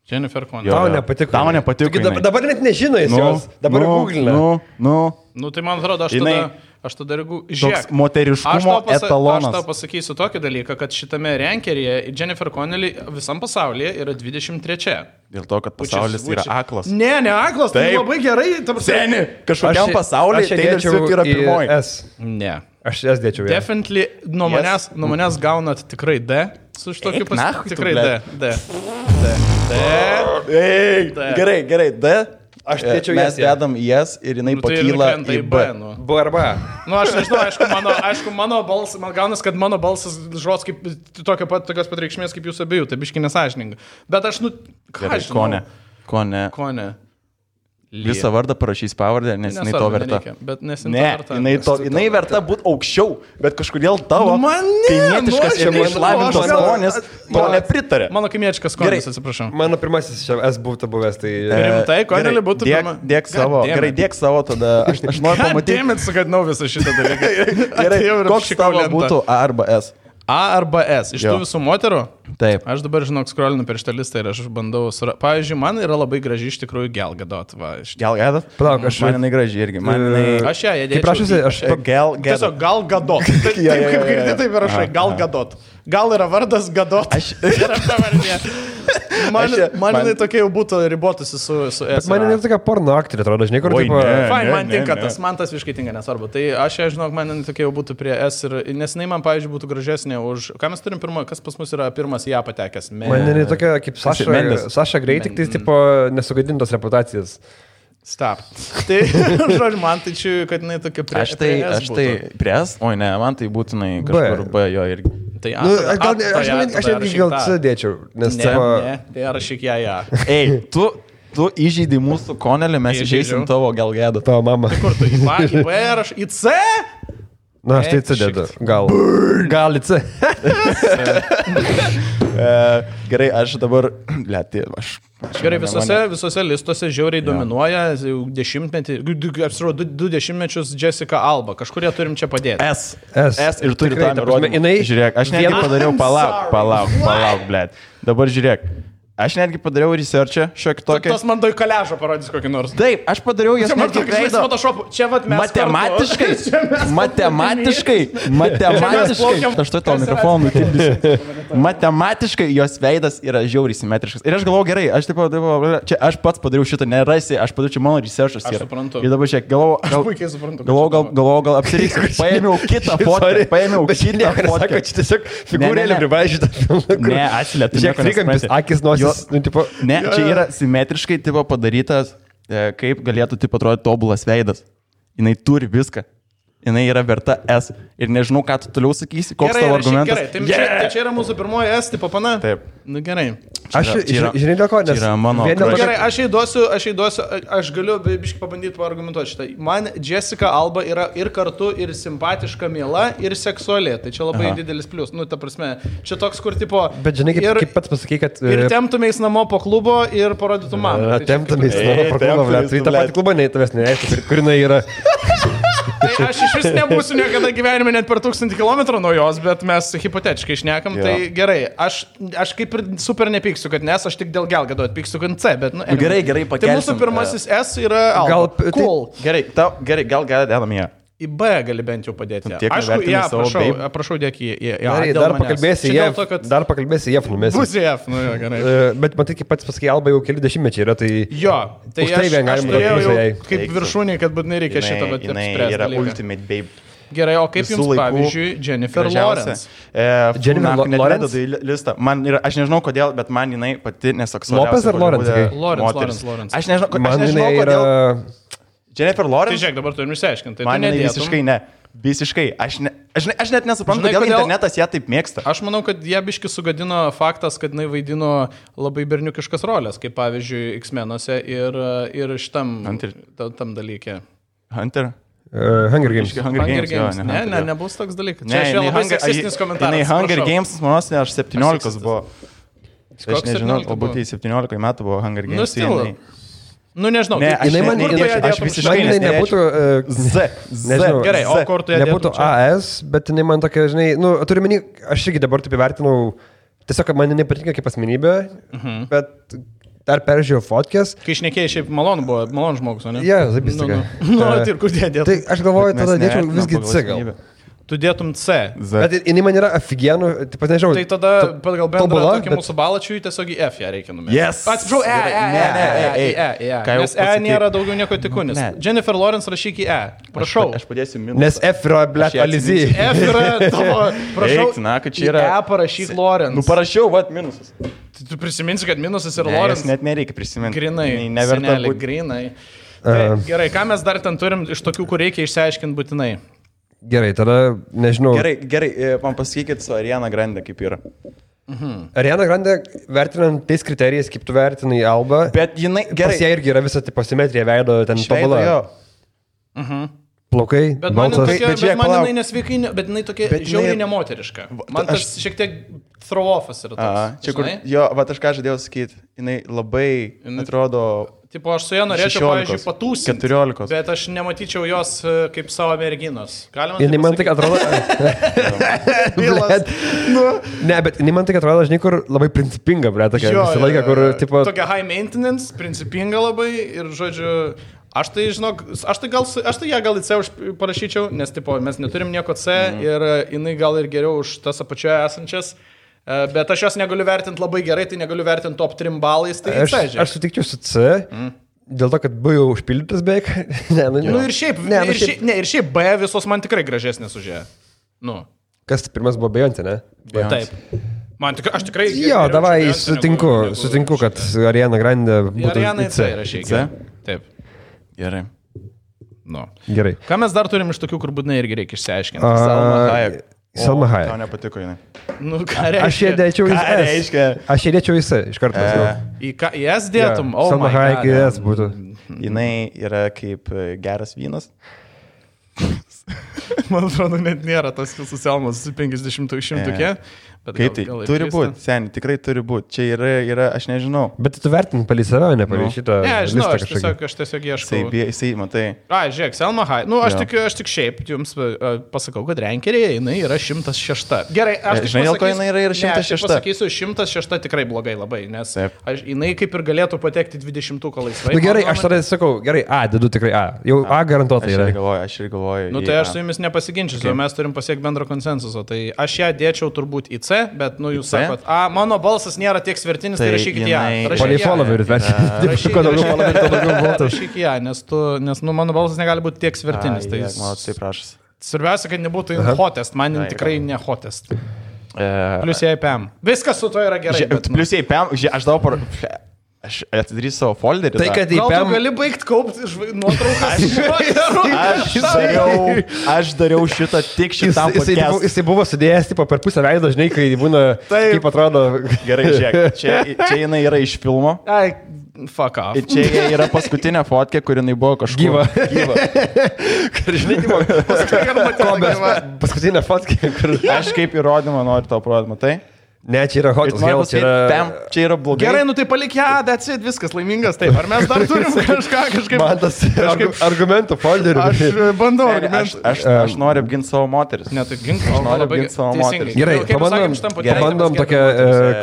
Tau nepatiko. Tau nepatiko. Dabar net nežino jis jos, dabar googlina. Nu, tai man atrodo, aš tada žiūrėk. Moteriškumo etalonas. Aš tau pasakysiu tokį dalyką, kad šitame rankeryje Jennifer Connelly visam pasaulyje yra 23. Dėl to, kad pasaulis yra aklas. Ne aklas, tai labai gerai. Seni, kažkokiam pasaulyje Taylor Swift yra pirmoji. Ne. Aš jas dėčiau. Definitely nuo manęs gaunat tikrai D. Su šitokiu tikrai D. Gerai, D. Aš dėčiau jas. Mes dedam jas ir jinai pakyla į B. B arba. Nu, aš nežinau, aišku, mano balsas, man gaunas, kad mano balsas žos kaip tokios pat reikšmės kaip jūsų abiejų, tai biškai nesąžininga. Bet aš, ką žinau. Kone. Visą vardą parašys pavardę, nes jinai to verta. Jinai verta būti aukščiau, bet kažkodėl tavo kaimietiškas ir neišlavintos skonės to nepritarė. Mano kaimietiškas skonis, atsiprašau. Mano pirmasis S būtų buvęs, tai... Rimtai, Connelly būtų pirma. Dėk savo, gerai, dėk savo, tada aš noriu pamatyti. Dėmėt, sugadinau visą šitą dalyką. Gerai, koks tavo būtų A arba S? A arba S. Iš tų visų moterų? Taip. Aš dabar, žinok, scrollinu per šitą listą ir aš bandau... Pavyzdžiui, man yra labai graži iš tikrųjų Gal Gadot. Gal Gadot? Palauk, man jinai graži irgi. Aš ją įdėčiau. Kaip prašysi, aš... Tiesiog Gal Gadot. Taip kaip girdi, taip ir rašai. Gal Gadot. Gal yra vardas Gadot. Yra pavardė. Man jinai tokia jau būtų ribotusi su S. Bet man jinai tokia porno aktorė, atrodo, žinai, kur tipo... Fine, man tinka tas, man tas visiškai tinka, nesvarbu. Tai aš ją, žinok, man jinai tokia jau būtų prie S ir... Nes jinai man, pavyzdžiui, būtų gražesnė už... Ką mes turim pirmą, kas pas mus yra pirmas ją patekęs? Man jinai tokia kaip Saša Grey, tik tai tipo nesugadintos reputacijas. Stop. Tai, žodžiu, man tai čia, kad jinai tokia prie S būtų. Aš tai prie S? Oi, ne, man tai būtinai kažkur B jo irgi. Tai aš netgi gal C dėčiau, nes ne, tai rašyk ją. Ei, tu įžeidai mūsų Connelly, mes įžeisim tavo Gal Gadot. Tavo mama. Kur tu, į B ar į C? Na, aš tai C dedu. Gal į C. Gerai, aš dabar... Gerai, visose listuose žiauriai dominuoja dešimtmetį, du dešimtmečius Jessica Alba. Kažkurie turim čia padėti. S ir turi tą nurodymą. Žiūrėk, aš netgi padariau, palauk, blėt. Dabar žiūrėk. Aš netgi padariau researchą šiokį tokį. Tas man doj kaležą parodys kokį nors. Taip, aš padariau jas netgi veido. Čia vat mes Matematiškai. Aš to tau mikrofoną nutildysiu. Matematiškai jos veidas yra žiauriai simetriškas. Ir aš galvoju gerai, čia aš pats padariau šitą, nerasi, aš padariau čia mano researchas. Aš suprantu. Ir dabar šiek, galvoju, gal apsiriksiu. Paėmiau kitą fotkę. Čia tiesiog figūrėlė privaižyta. Ne, atsilėtų. Žiūrėk, trikampis, akis, nosis. Ne, čia yra simetriškai padarytas, kaip galėtų atrodyti tobulas veidas. Jinai turi viską. Jinai yra verta S. Ir nežinau, ką tu toliau sakysi, koks tavo argumentas. Gerai, tai čia yra mūsų pirmoji S tipo pana. Taip. Nu gerai. Žinai, dėl ko, nes... Yra mano... Gerai, aš įduosiu, aš galiu biškai pabandyti paargumentuoti šitą. Man Jessica Alba yra ir kartu, ir simpatiška, miela, ir seksuali. Tai čia labai didelis plius. Nu, ta prasme, čia toks, kur tipo... Bet žinai, kaip pats pasakai, kad... Ir temptumės namo po klubo ir parodytų man. Temptumės namo po klubo, tai tą patį klubą neįtavęs nereiškia, kur jinai yra... Tai aš iš vis nebūsiu niekada gyvenime net per 1000 km nuo jos, bet mes hipotetiškai šnekam, tai gerai. Aš kaip ir super nepyksiu, kad nes aš tik dėl Gelgado atpyksiu, kad C, bet... Nu, gerai, pakelsim. Tai mūsų pirmasis S yra Alba. Cool. Gerai, gal dedam ją. Į B gali bent jau padėti. Aišku, prašau, dėk į A. Dar pakalbėsi F numesi. Bus F, nu jo, gerai. Bet matai, kaip pats pasakai, Alba jau keli dešimtmečiai yra, tai... Jo, tai aš turėjau jau kaip viršūnį, kad būtinai reikia šitą apspręsti. Jinai yra ultimate babe. Gerai, o kaip jums, pavyzdžiui, Jennifer Lawrence? Jennifer Lawrence listą. Aš nežinau kodėl, bet man jinai pati neseksualiausia. Lopez ar Lawrence? Lawrence. Aš nežinau kodėl. Jennifer Lawrence? Tai žiūrėk, dabar turim išsiaiškinti. Man visiškai ne. Visiškai. Aš net nesuprantu, kodėl internetas ją taip mėgsta. Aš manau, kad ją biški sugadino faktas, kad jinai vaidino labai berniukiškas rolės, kaip pavyzdžiui X-menuose ir šitam tam dalykė. Hunter? Hunger Games. Hunger Games. Ne, nebus toks dalykas. Čia aš labai seksistinis komentaras. Jinai Hunger Games, manos, aš 17 buvo. Aš nežinau, galbūt 17 metų buvo Hunger Games. Nu, nežinau. Ne, aš visiškai nebūtų... Nežinau. Gerai, o kur tu ją nebūtų AS, bet jinai man tokia, žinai, nu, turiu menį, aš irgi dabar taip įvertinau, tiesiog man nepatinka kaip asmenybė, bet dar peržiūrėjau fotkės. Kai šnekėjai, šiaip malonu žmogus, o ne? Jo, zabistika. Nu, ir kur dėdėtum? Tai aš galvoju, tada dėčiau visgi C gal. Tu dėtum C. Bet jinai man yra aфиgenų, taip pat nežinau. Tai tada pagal bendrą tokį mūsų balačiui tiesiog į F ją reikia numesti. Yes. Atsiprašau, Nes E nėra daugiau nieko tikunis. Jennifer Lawrence rašyk į E. Prašau. Aš padėsiu minusą. Nes F yra, blėt, Alizy. F yra tavo. Prašau, į E parašyk Lawrence. Nu parašiau, minusas. Tu prisiminsi, kad minusas yra Lawrence? Net nereikia prisiminti. Grinai. Senelį, grinai. Gerai, ką mes dar ten turim iš tokių, kur reikia išsiaiškinti būtinai? Gerai, tada nežinau. Gerai, man pasakykit su Ariana Grande kaip yra. Ariana Grande vertinant tais kriterijais, kaip tu vertinai Alba. Bet jinai, gerai. Pas ją irgi yra visa tipo simetrija veido, ten tobula. Plaukai, balsas. Bet man jinai nesveikai, bet jinai tokia žiauriai nemoteriška. Man tas šiek tiek throw-offas yra toks. Čia kur, jo, aš ką žadėjau sakyti, jinai labai atrodo... Tipo, aš su ją norėčiau, pavyzdžiui, patūsinti, 14. bet aš nematyčiau jos kaip savo merginos. Jinai man tik atrodo... Ne, bet jinai man tik atrodo, žinai, kur labai principinga, ble, tokia visą laiką, kur, tipo... Tokia high maintenance, principinga labai ir, žodžiu, aš tai, žinok, aš tai ją gal į C parašyčiau, nes, tipo, mes neturim nieko C ir jinai gal ir geriau už tas apačioje esančias. Bet aš jos negaliu vertinti labai gerai, tai negaliu vertinti top 3 balais, tai aš sutikčiau su C, dėl to, kad B jau užpildytas beveik. Ir šiaip B visos man tikrai gražesnės už ją. Nu. Kas pirmas buvo Beyoncé, ne? Taip. Aš tikrai... Jo, davai, sutinku, kad Ariana Grande būtų Ariana C rašyk. Taip. Gerai. Nu. Gerai. Ką mes dar turim iš tokių, kur būtinai irgi reikia išsiaiškinti? Salma Hayek. Tau nepatiko jinai. Nu, ką reiškia? Aš ją dėčiau į S. Aš ją dėčiau į S, iš karto. Į S dėtum? Salma Hayek į S būtų. Jinai yra kaip geras vynas. Man atrodo, net nėra tas su Selmas 50-100, Kaip tai? Turi būti, seniai, tikrai turi būti. Čia yra, aš nežinau. Bet tu vertini palį save, ne palį šitą. Ne, žinau, aš tiesiog ieškau. Jisai, matai. Žiūrėk, Selma Hayek. Nu, aš tik šiaip jums pasakau, kad rankerėje jinai yra 106. Gerai, aš tik žinai, dėl ko jinai yra 106. Aš pasakysiu, 106 tikrai blogai labai, nes jinai kaip ir galėtų patekti 20-ką laisvai. Na gerai, aš tada sakau, gerai, dedu tikrai A. Jau A garantuotai yra. Aš ir galvoju. Nu, tai aš su jumis nepasiginčiu, mes turim pasiekti bendro konsensuso. Tai aš ją dėčiau turbūt į C, bet, nu, jūs sakot, mano balsas nėra tiek svertinis, tai rašykit ją. Palei followerius, bet rašyk ją, nes, nu, mano balsas negali būti tiek svertinis. Tai prašas. Svarbiausia, kad nebūtų hotest, man tikrai ne hotest. Plius jai PM. Viskas su to yra gerai. Plius jai PM, aš dabar... Aš atidarysiu savo folderį. Tai, kad gal tu gali baigti kaupti nuotraukas. Aš dariau šitą tik šitam podcast'ui. Jisai buvo sudėjęs tipo, per pusę veido, žinai, kai būna, kaip atrodo. Gerai, žiūrėk, čia jinai yra iš filmo. Ai, fuck off. Čia yra paskutinė fotkė, kur jinai buvo kažkur. Gyva. Žinai, paskutinė fotkė, kur... Aš kaip įrodymą noriu tau parodyti, matai? Ne, čia yra hot hell, čia yra blogai. Gerai, nu tai palik ją, that's it, viskas laimingas, taip. Ar mes dar turim kažkaip... Man tas argumentų folderį. Aš bandau argumentų. Aš noriu apginti savo moteris. Ne, tai gink, aš noriu apginti savo moteris. Gerai, pabandom tokią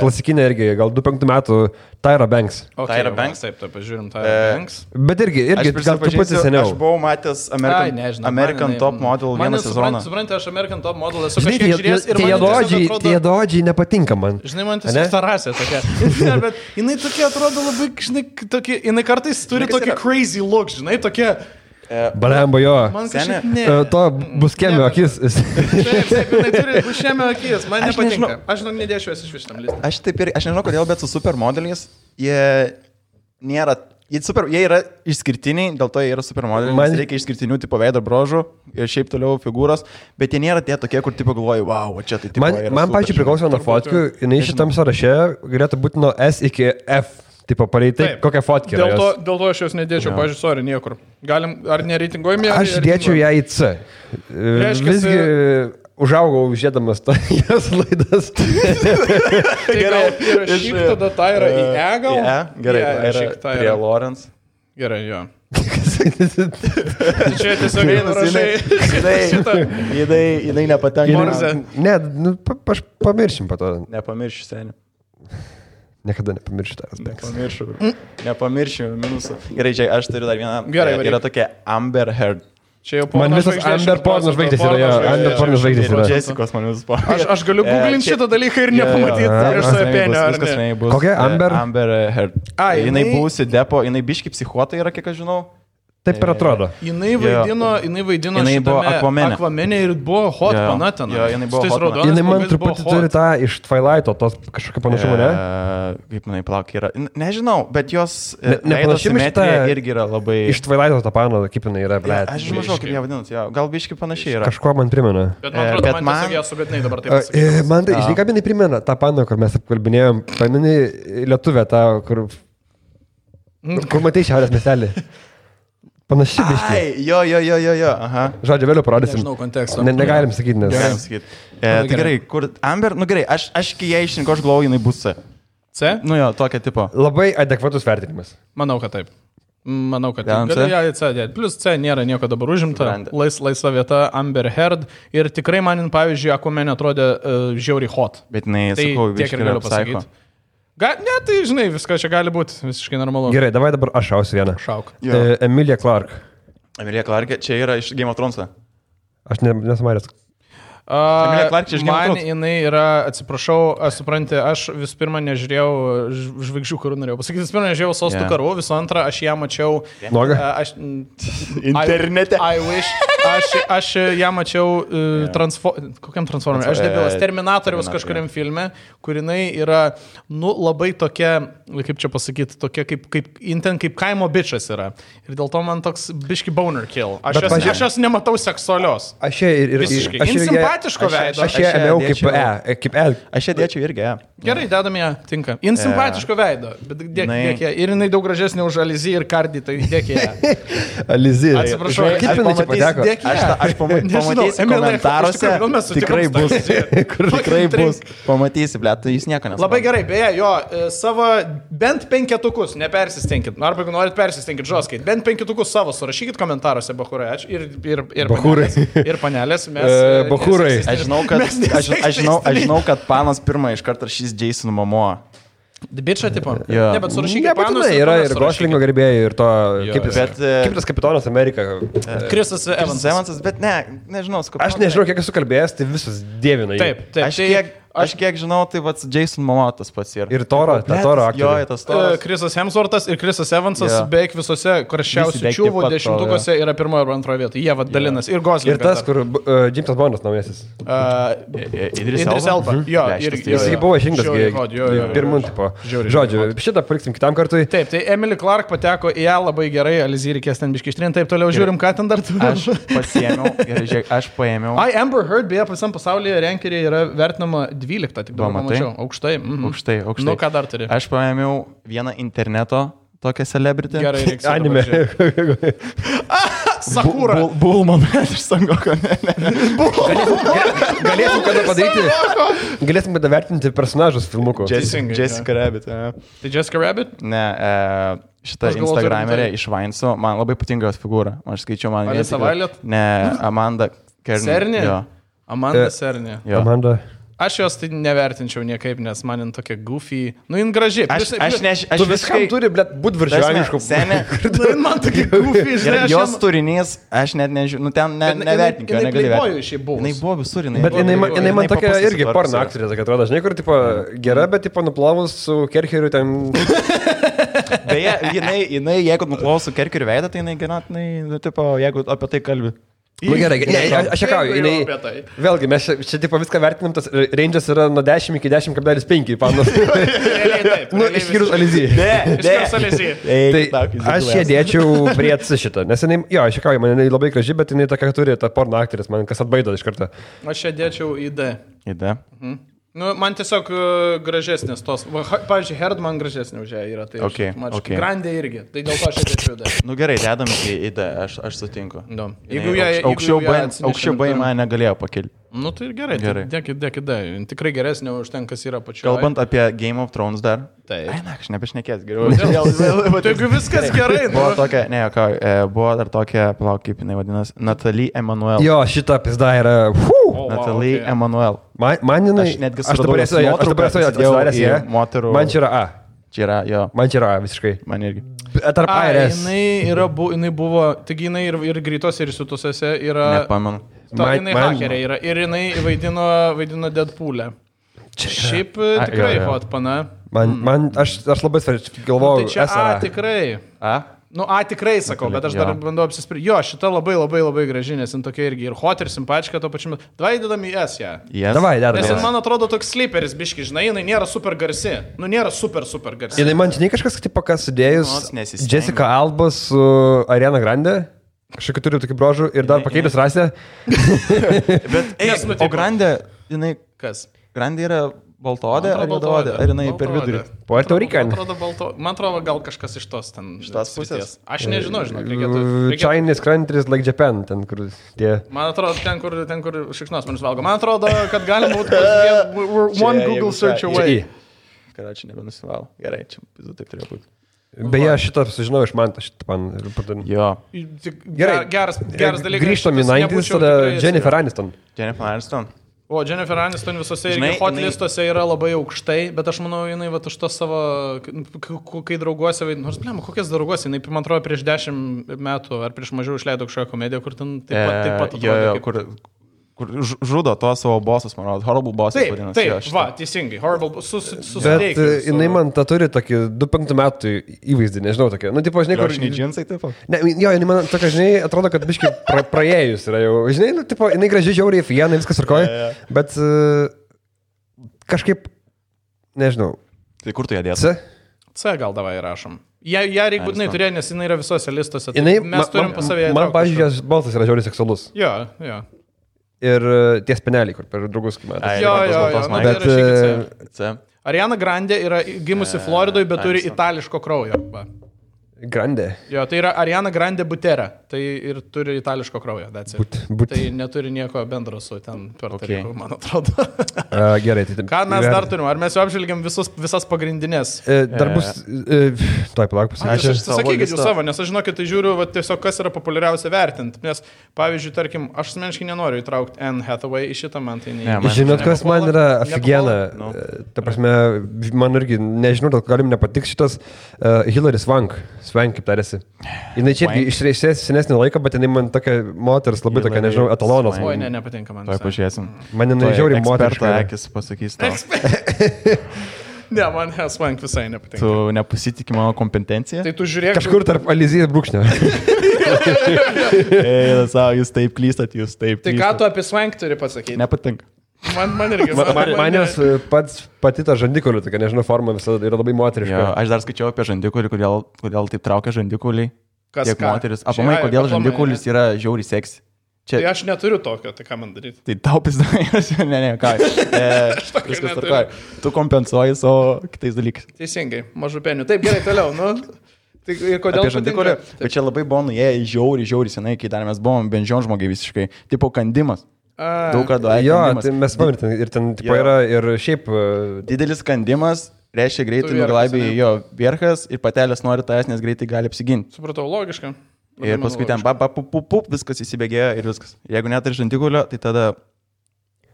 klasikinę irgi, gal 2-5 metų Tyra Banks. Tyra Banks? Taip, pažiūrim Tyra Banks. Bet irgi gal truputį seniau. Aš buvau matęs American Top Model vieną sezoną. Suprantate, aš American Top Model esu kažkiek žiūrėjęs ir man tie dodžiai nepatinka man. Žinai, man tiesiog ta rasė tokia. Bet jinai tokia atrodo labai, žinai, tokia, jinai kartais turi tokį crazy look, žinai, tokia... Balemba jo. Man kažkaip ne. To buskėmio akis. Taip, jinai turi buskėmio akis, man nepatinka. Aš nedėšiu iš šitam listą. Aš nežinau kodėl, bet su supermodeliais jie nėra... Jie yra išskirtiniai, dėl to jie yra supermodeliai. Man reikia išskirtinių tipo veido brožų ir šiaip toliau figūros, bet jie nėra tie tokie, kur tipo galvoju, wow, čia tai tipo yra. Man pačiai priklauso nuo fotkių, jinai šitam sąraše galėtų būti nuo S iki F. Tipo, pareitai, kokią fotkę. Dėl to aš jos nedėčiau, pažiūrėjau, sorry, niekur. Galim, ar nereitinguojame ją? Aš dėčiau ją į C. Visgi užaugau žiūrėdamas jos laidas. Tai gal įrašyk tada Tyra į E gal? Į E, gerai, įrašyk prie Lawrence. Gerai, jo. Čia tiesiog įrašai šitą. Jinai nepatenka. Ne, aš pamiršim po to. Nepamiršiu seniai. Niekada nepamiršiu tavęs. Nepamiršiu minusų. Gerai, čia aš turiu dar vieną. Gerai, yra tokia Amber Heard. Man visas Amber porno žvaigždės yra. Amber porno žvaigždės yra. Jessicos man visas porno. Aš galiu googlinti šitą dalyką ir nepamatyti iš savo penio. Kokia Amber? Amber Heard. Jinai buvusi depo, jinai biški psichuota yra, kiek aš žinau. Taip ir atrodo. Jinai vaidino Aquaman'e ir buvo hot panatena. Jo, jinai buvo hot. Jinai man truputį turi tą iš Twilighto, tos kažkokio panašumo, ne? Kaip manai plauk yra. Nežinau, bet jos veido simetrija irgi yra labai... Iš Twilighto tą paną, kaip jinai yra, blėt. Aš žinau, kaip ją vadinat, gal biški panašiai yra. Kažko man primena. Bet man atrodo, man tiesiog ją sugadinai dabar taip pasakyti. Man tai, žinai, ką jinai primena, tą paną, kur mes apkalbinėjom, pamini lietuvę tą, kur matai Šiaurės miestelį. Panašiai biškai. Jo, aha. Žodžiu, vėliau parodysim. Nežinau konteksto. Negalim sakyti, nes... Negalim sakyti. Tai gerai, kur Amber, nu gerai, aš kai ją išrinko, aš galvoju, jinai bus C. C? Nu jo, tokia tipo. Labai adekvatus vertinimas. Manau, kad taip. Galiu ją į C dėti. Plus C nėra nieko dabar užimta. Laisva vieta Amber Heard. Ir tikrai man, pavyzdžiui, Aquaman atrodė žiauriai hot. Bet jinai, sakau, biškai galiu pasakyti. Ne, tai žinai, viskas čia gali būti visiškai normalu. Gerai, davai dabar aš šausiu vieną. Šauk. Emilia Clarke. Emilia Clarke, čia yra iš Game of Thrones. Aš nesumaręs. Man jinai yra, atsiprašau, supranti, aš vis pirma nežiūrėjau žvaigždžių karų, norėjau pasakyti, vis pirma nežiūrėjau Sostų karų, visų antra, aš ją mačiau... Noga? Internete. I wish. Aš ją mačiau kokiam transformeriui? Aš debilas Terminatoriaus kažkuriam filme, kur jinai yra, nu, labai tokia, kaip čia pasakyti, tokia kaip kaimo bičas yra. Ir dėl to man toks biški boner kill. Aš jos nematau seksualios. Aš ją ir... Visiškai. Simpatiško veido. Aš ją ėmiau kaip E. Aš ją dėčiau irgi E. Gerai, dedam ją, tinka. Jin simpatiško veido, bet dėk ją. Ir jinai daug gražesnė už Alizį ir Kardį, tai dėk ją. Alizį. Atsiprašau, kaip jinai čia pateko? Aš pamatysiu komentaruose, tikrai bus. Tikrai bus. Pamatysi, ble, tai jūs nieko nesuprantate. Labai gerai, beje, jo, savo bent 5, nepersistenkit. Arba jeigu norit persistenkit žoskait, bent 5 savo surašykit komentaruose, bachurai. Ir panelės. Bachurai. Aš žinau, kad panas pirmą iš karto rašys Jason Momoa. Bičą tipo? Jo. Ne, bet surašykit panus. Yra ir Goslingo gerbėjai, ir to, kaip tas kapitonas Amerika. Chrisas Evansas. Bet nežinau. Aš nežinau, kiek esu kalbėjęs, tai visus dievina. Taip. Aš kiek žinau, tai vats Jason Momoa tas pats yra. Ir Toro aktorius. Jo, tas Toras. Chrisas Hemsworthas ir Chrisas Evansas beveik visose karščiausių čiūvų 10-ukose yra 1 ar 2 vietoj. Jie dalinasi. Ir Goslingas. Ir tas, kur Jamesas Bondas naujasis. Idris Elba. Jo, jis buvo išrinktas pirmų tipo. Žodžiu, šitą paliksim kitam kartui. Taip, tai Emily Clark pateko į ją labai gerai, Alizį reikės ten biški ištrinti, taip toliau žiūrim, ką ten dar turi. Aš paėmiau. Amber Heard, beje, visam pasaulyje renkerė yra vertinama 12, tik dabar pamačiau. Aukštai. Aukštai. Nu, ką dar turi? Aš paėmiau vieną interneto tokią celebrity. Gerai, reiks. Anime. Sakura. Bulman iš Sangoko. Galėsim kada padaryti. Galėsim kada vertinti personažus filmuko. Jessica Rabbit. Tai Jessica Rabbit? Ne, šitą Instagramerę iš Vainso. Man labai patinka jos figūra. Aš skaičiau, man... Alisa Violet? Ne, Amanda Serni? Jo. Amanda Serni. Amanda. Aš jos tai nevertinčiau niekaip, nes man jin tokia goofy. Nu, jin graži. Tu viskam turi, blėt, būt viršuaniškų. Nu, jin man tokia goofy, žinai. Jos turinys, aš net nežinau, nu ten nevertinkiau, negali vertinti. Jinai buvo visur, bet jinai man tokia irgi porno aktorė, kad atrodo, žinai, kur, tipo, gera, bet, tipo, nuplovus su Kerkeriu ten... Beje, jinai, jeigu nuplovus su Kerkeriu veidą, tai jinai ganėtinai, nu, tipo, jeigu apie tai kalbi. Nu gerai, aš šiekauju, vėlgi, mes čia tipo viską vertinam, tas range'as yra nuo 10 iki 10,5 panos. Nu, išskyrus Alizį. Išskyrus Alizį. Tai aš ją dėčiau prie šitą, nes jinai, jo, aš šiekauju, man jinai labai graži, bet jinai tokia turi, ta porno aktorės, man kas atbaido iš karto. Aš ją dėčiau į D. Į D? Nu, man tiesiog gražesnės tos. Pavyzdžiui, Heard man gražesnė už ją yra. Tai okay. Grandė irgi. Tai dėl to aš dėčiau D. Nu gerai, dedam į D, aš sutinku. No. Aukščiau B mane negalėjo pakilti. Nu tai ir gerai. Dėkit D. Tikrai geresnė už ten, kas yra pačioje. Kalbant apie Game of Thrones dar. Taip. Ai, na, aš nebešnekės geriau. Taigi viskas gerai. Buvo tokia, buvo dar tokia, palauk, kaip jinai vadinasi, Natalie Emanuel. Jo, šita pizda yra... Natalie Emanuel. Man jinai... Aš dabar esu atsidaręs į moterų... Man čia yra A. Čia yra, jo. Man čia yra A, visiškai. Man irgi. Tarp A ir S. Jinai buvo, taigi jinai ir greitos ir sutusose yra... Nepamenu. Jinai hakerė yra ir jinai vaidino Deadpool'e. Šiaip tikrai hot pana. Aš labai svarčiai galvojau, tai čia A tikrai. A? Nu, A tikrai sakau, bet aš dar bandau apsispręsti. Jo, šita labai graži, nes jin tokia irgi ir hot, ir simpatiška to pačiu metu. Davai dedam į S ją. Davai, dedam. Nes jin man atrodo toks sleeperis biški, žinai, jinai nėra super garsi. Nu, nėra super garsi. Jinai man žinai kažkas, tipo, kas sudėjus Jessica Alba su Ariana Grande. Kažkokį turiu tokį brožų ir dar pakeitęs rasę. Bet, o Grande, jinai... Kas? Grande yra baltodė ar juodaodė? Ar jinai per vidurį? Puerto Rican. Man atrodo, gal kažkas iš tos ten. Iš tos pusės. Aš nežinau, reikėtų. Chinese countries like Japan, ten kur tie. Man atrodo, ten kur šikšnosparnius valgo. Man atrodo, kad galim būti one Google search away. Karačiai nebenusivalo. Gerai, čia taip turėjo būti. Beje, šitą sužinojau iš Manto, šitą man pardavė. Jo. Geras dalykas. Grįžtam į 90's, tada Jennifer Aniston. O, Jennifer Aniston visose irgi hot listuose yra labai aukštai, bet aš manau, jinai va už to savo, kai drauguose, nors, blėma, kokias drauguose, jinai, man atrodo, prieš 10 metų ar prieš mažiau išleido kažkokią komediją, kur ten taip pat atrodė. Kur žudo to savo bosus, man rodo, Horrible Bosses vadinasi. Taip, va, teisingai, Horrible, bet jinai man tą turi tokį 25 metų įvaizdį, nežinau, tokia. Nu, tipo, žinai, kur... Žinai, džinsai taip? Ne, jo, jinai man tokia, žinai, atrodo, kad biškai praėjus yra jau. Žinai, nu, tipo, jinai gražiai žiauriai, fiena, viskas arkoja, bet kažkaip, nežinau. Tai kur tu ją dėsi? C gal davai rašom. Ją reikia būtinai turėti, nes jinai yra visose listuose. Jinai, mes turim pas savėje. Man, pavyzdžiui, jos balsas yra žiauriai seksualus. Jo. ir tie speneliai, kur per draugus matė. Jo, Bet Ariana Grande yra gimusi Floridoje, bet turi itališko kraujo. Va. Grande. Jo, tai yra Ariana Grande Butera. Tai ir turi itališko kraujo. Tai neturi nieko bendro su ten Puerto, man atrodo. Gerai. Tai ką mes dar turim? Ar mes jau apžvelgiam visas pagrindinės? Dar bus... Tuoj palauk pasakysiu. Sakykit jūs savo, nes aš žinokit, tai žiūriu tiesiog, kas yra populiariausia vertinti. Nes, pavyzdžiui, tarkim, aš asmeniškai nenoriu įtraukti Anne Hathaway į šitą, man tai neįmanoma. Žinot, kas man yra aфигена. Ta prasme, man irgi, nežinau, dėl galim nepatiks šitas Hilary Swank, kaip tarėsi. Jis čia išreisės senesnį laiką, bet jinai man tokia moteris, labai tokia, nežinau, etalonas. Oi, nepatinka man. Tuoj pažiūrėsim. Man jinai žiauriai moteriška. Akis pasakys tau. Ne, man Swank visai nepatinka. Tu nepasitikė mano kompetencija? Tai tu žiūrėk. Kažkur tarp Alizijos brūkšnio. Jūs taip klystat, jūs taip. Tai ką tu apie Swank turi pasakyti? Nepatinka. Man irgi. Man jos pati ta žandikolių, tokia, nežinau, forma visada yra labai moteriška. Jo, aš dar skaičiau apie žandikolį, kodėl taip traukia žandikoliai. Kas tiek moteris. Aplamai, kodėl žandikolis yra žiauriai seksi. Tai aš neturiu tokio, tai ką man daryti? Tai tau pizdavai, ne, ką. Viskas tvarkoja. Tu kompensuoji savo kitais dalykais. Teisingai, mažupenių. Taip, gerai, toliau, nu. Tai ir kodėl apie žandikolį? Bet čia labai buvo nuėję žiauriai senai, kai dar mes buvom benžion žmogiai visiškai. Tipo kandimas. Daug kartų jo, tai mes pamirtam ir ten tipo, yra ir šiaip didelis kandimas, reiškia greitai nuglaibė jo vierchas ir patelės nori tavęs, nes greitai gali apsiginti. Supratau, logiška. Ir paskui ten viskas įsibėgėjo ir viskas. Jeigu neturi žandikolio, tai tada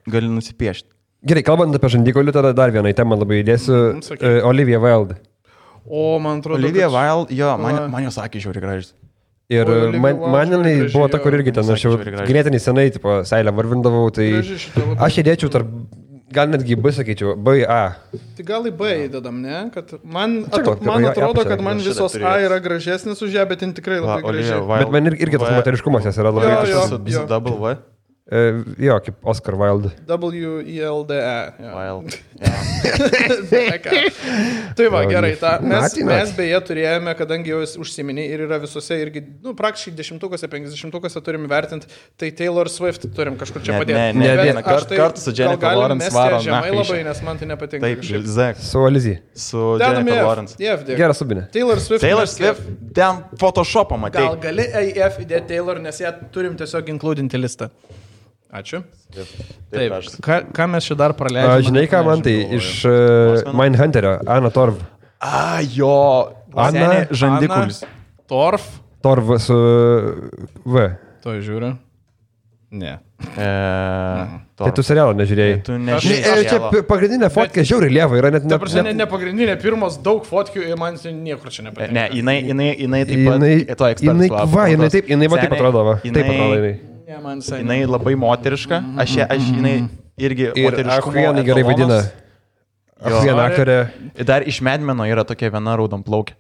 gali nusipiešti. Gerai, kalbant apie žandikolį, tada dar vieną temą labai įdėsiu. Olivia Wilde. O, man atrodo. Olivia Wilde, jo, man jos sakė žiauriai gražiai. Ir man jinai buvo ta, kur irgi ten, aš jau ganėtinai senai, tipo, seilę varvindavau, tai aš įdėčiau tarp, gal netgi B sakyčiau, B, A. Tai gal į B įdedam, ne? Kad man atrodo, kad man visos A yra gražesnis už ją, bet jin tikrai labai gražiai. Bet man irgi tas moteriškumas yra labai gražus. Su double V? Jo, kaip Oscar Wilde. W-I-L-D-E. Wilde. Tai va, gerai. Mes beje turėjome, kadangi jau užsiminė ir yra visose irgi, praktiškai 10-ukose, 50-ukose turim vertinti, tai Taylor Swift turim kažkur čia padėti. Ne vieną kartą su Jennifer Lawrence varom. Žemai labai, nes man tai nepatinka. Taip, Zek. Su Alizija. Su Jennifer Lawrence. Geras subinė. Taylor Swift. Ten Photoshopą matė. Gal gali AF įdėti Taylor, nes ją turim tiesiog inkludinti listą. Ačiū. Taip, ką mes čia dar praleidžiame? Žinai, ką man tai iš Mindhunterio, Anna Torv. Jo, Anna žandikulis. Torv su V. To žiūriu. Ne. Tai tu serialą nežiūrėjai. Tu nežiūrėjai. Čia pagrindinė fotkė žiauriai lieva yra. Ta prasme, ne pagrindinė, pirmos daug fotkių ir man niekur čia nepatinka. Ne, jinai taip pat, to ekspertas. Jinai va taip atrodo. Taip atrodo jinai. Jinai labai moteriška, aš jinai irgi moteriškumo jinai gerai vaidina. Viena aktorė. Dar iš Medmeno yra tokia viena raudonplaukė.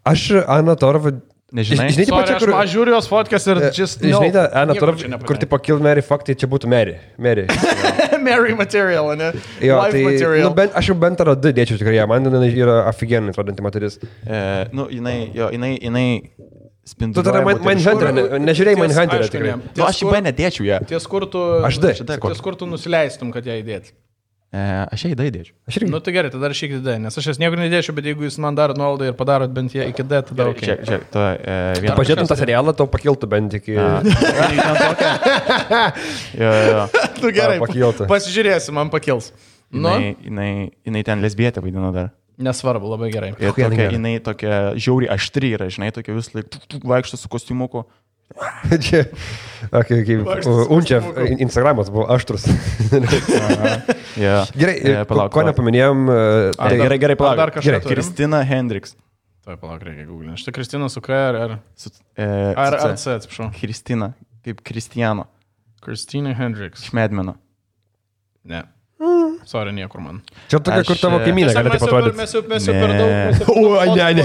Aš Anna Torv, nežinai? Sorry, aš žiūriu jos fotkės ir žinai, Anna Torv, kur tipo Kill Mary Fuck, tai čia būtų Mary. Mary material, ne? Jo, tai aš jau bent ar du dėčiau tikrai, man yra aфиgenai atrodanti moteris. Jinai Tu tada Mindhunter'ą, nežiūrėjai Mindhunter'ą tikrai. Aš į B nedėčiau ją. Ties kur tu nusileistum, kad ją įdėti? Aš ją į D įdėčiau. Nu tai gerai, tada rašykit D, nes aš jas niekur nedėčiau, bet jeigu jūs man darot nuolaidą ir padarot bent ją iki D, tada ok. Tu pažiūrėtum tą serialą, tau pakiltų bent iki... Tu gerai, pasižiūrėsim, man pakils. Jinai ten lesbietė vaidino dar. Nesvarbu, labai gerai. Ir jinai tokia žiauriai aštri yra, žinai, tokia vis laik vaikšto su kostiumuku. Čia, Unčev Instagramas buvo aštrus. Gerai, ko nepaminėjom? Gerai, palauk. Kristina Hendricks. Tai palauk, reikia googlinti. Štai Kristina su K ar C, atsiprašau. Kristina, kaip Kristijano. Kristina Hendricks. Iš Medmeno. Ne. Sorry, niekur man. Čia tokia, kur tavo kaimynė gali taip atrodyti. Mes jau per daug...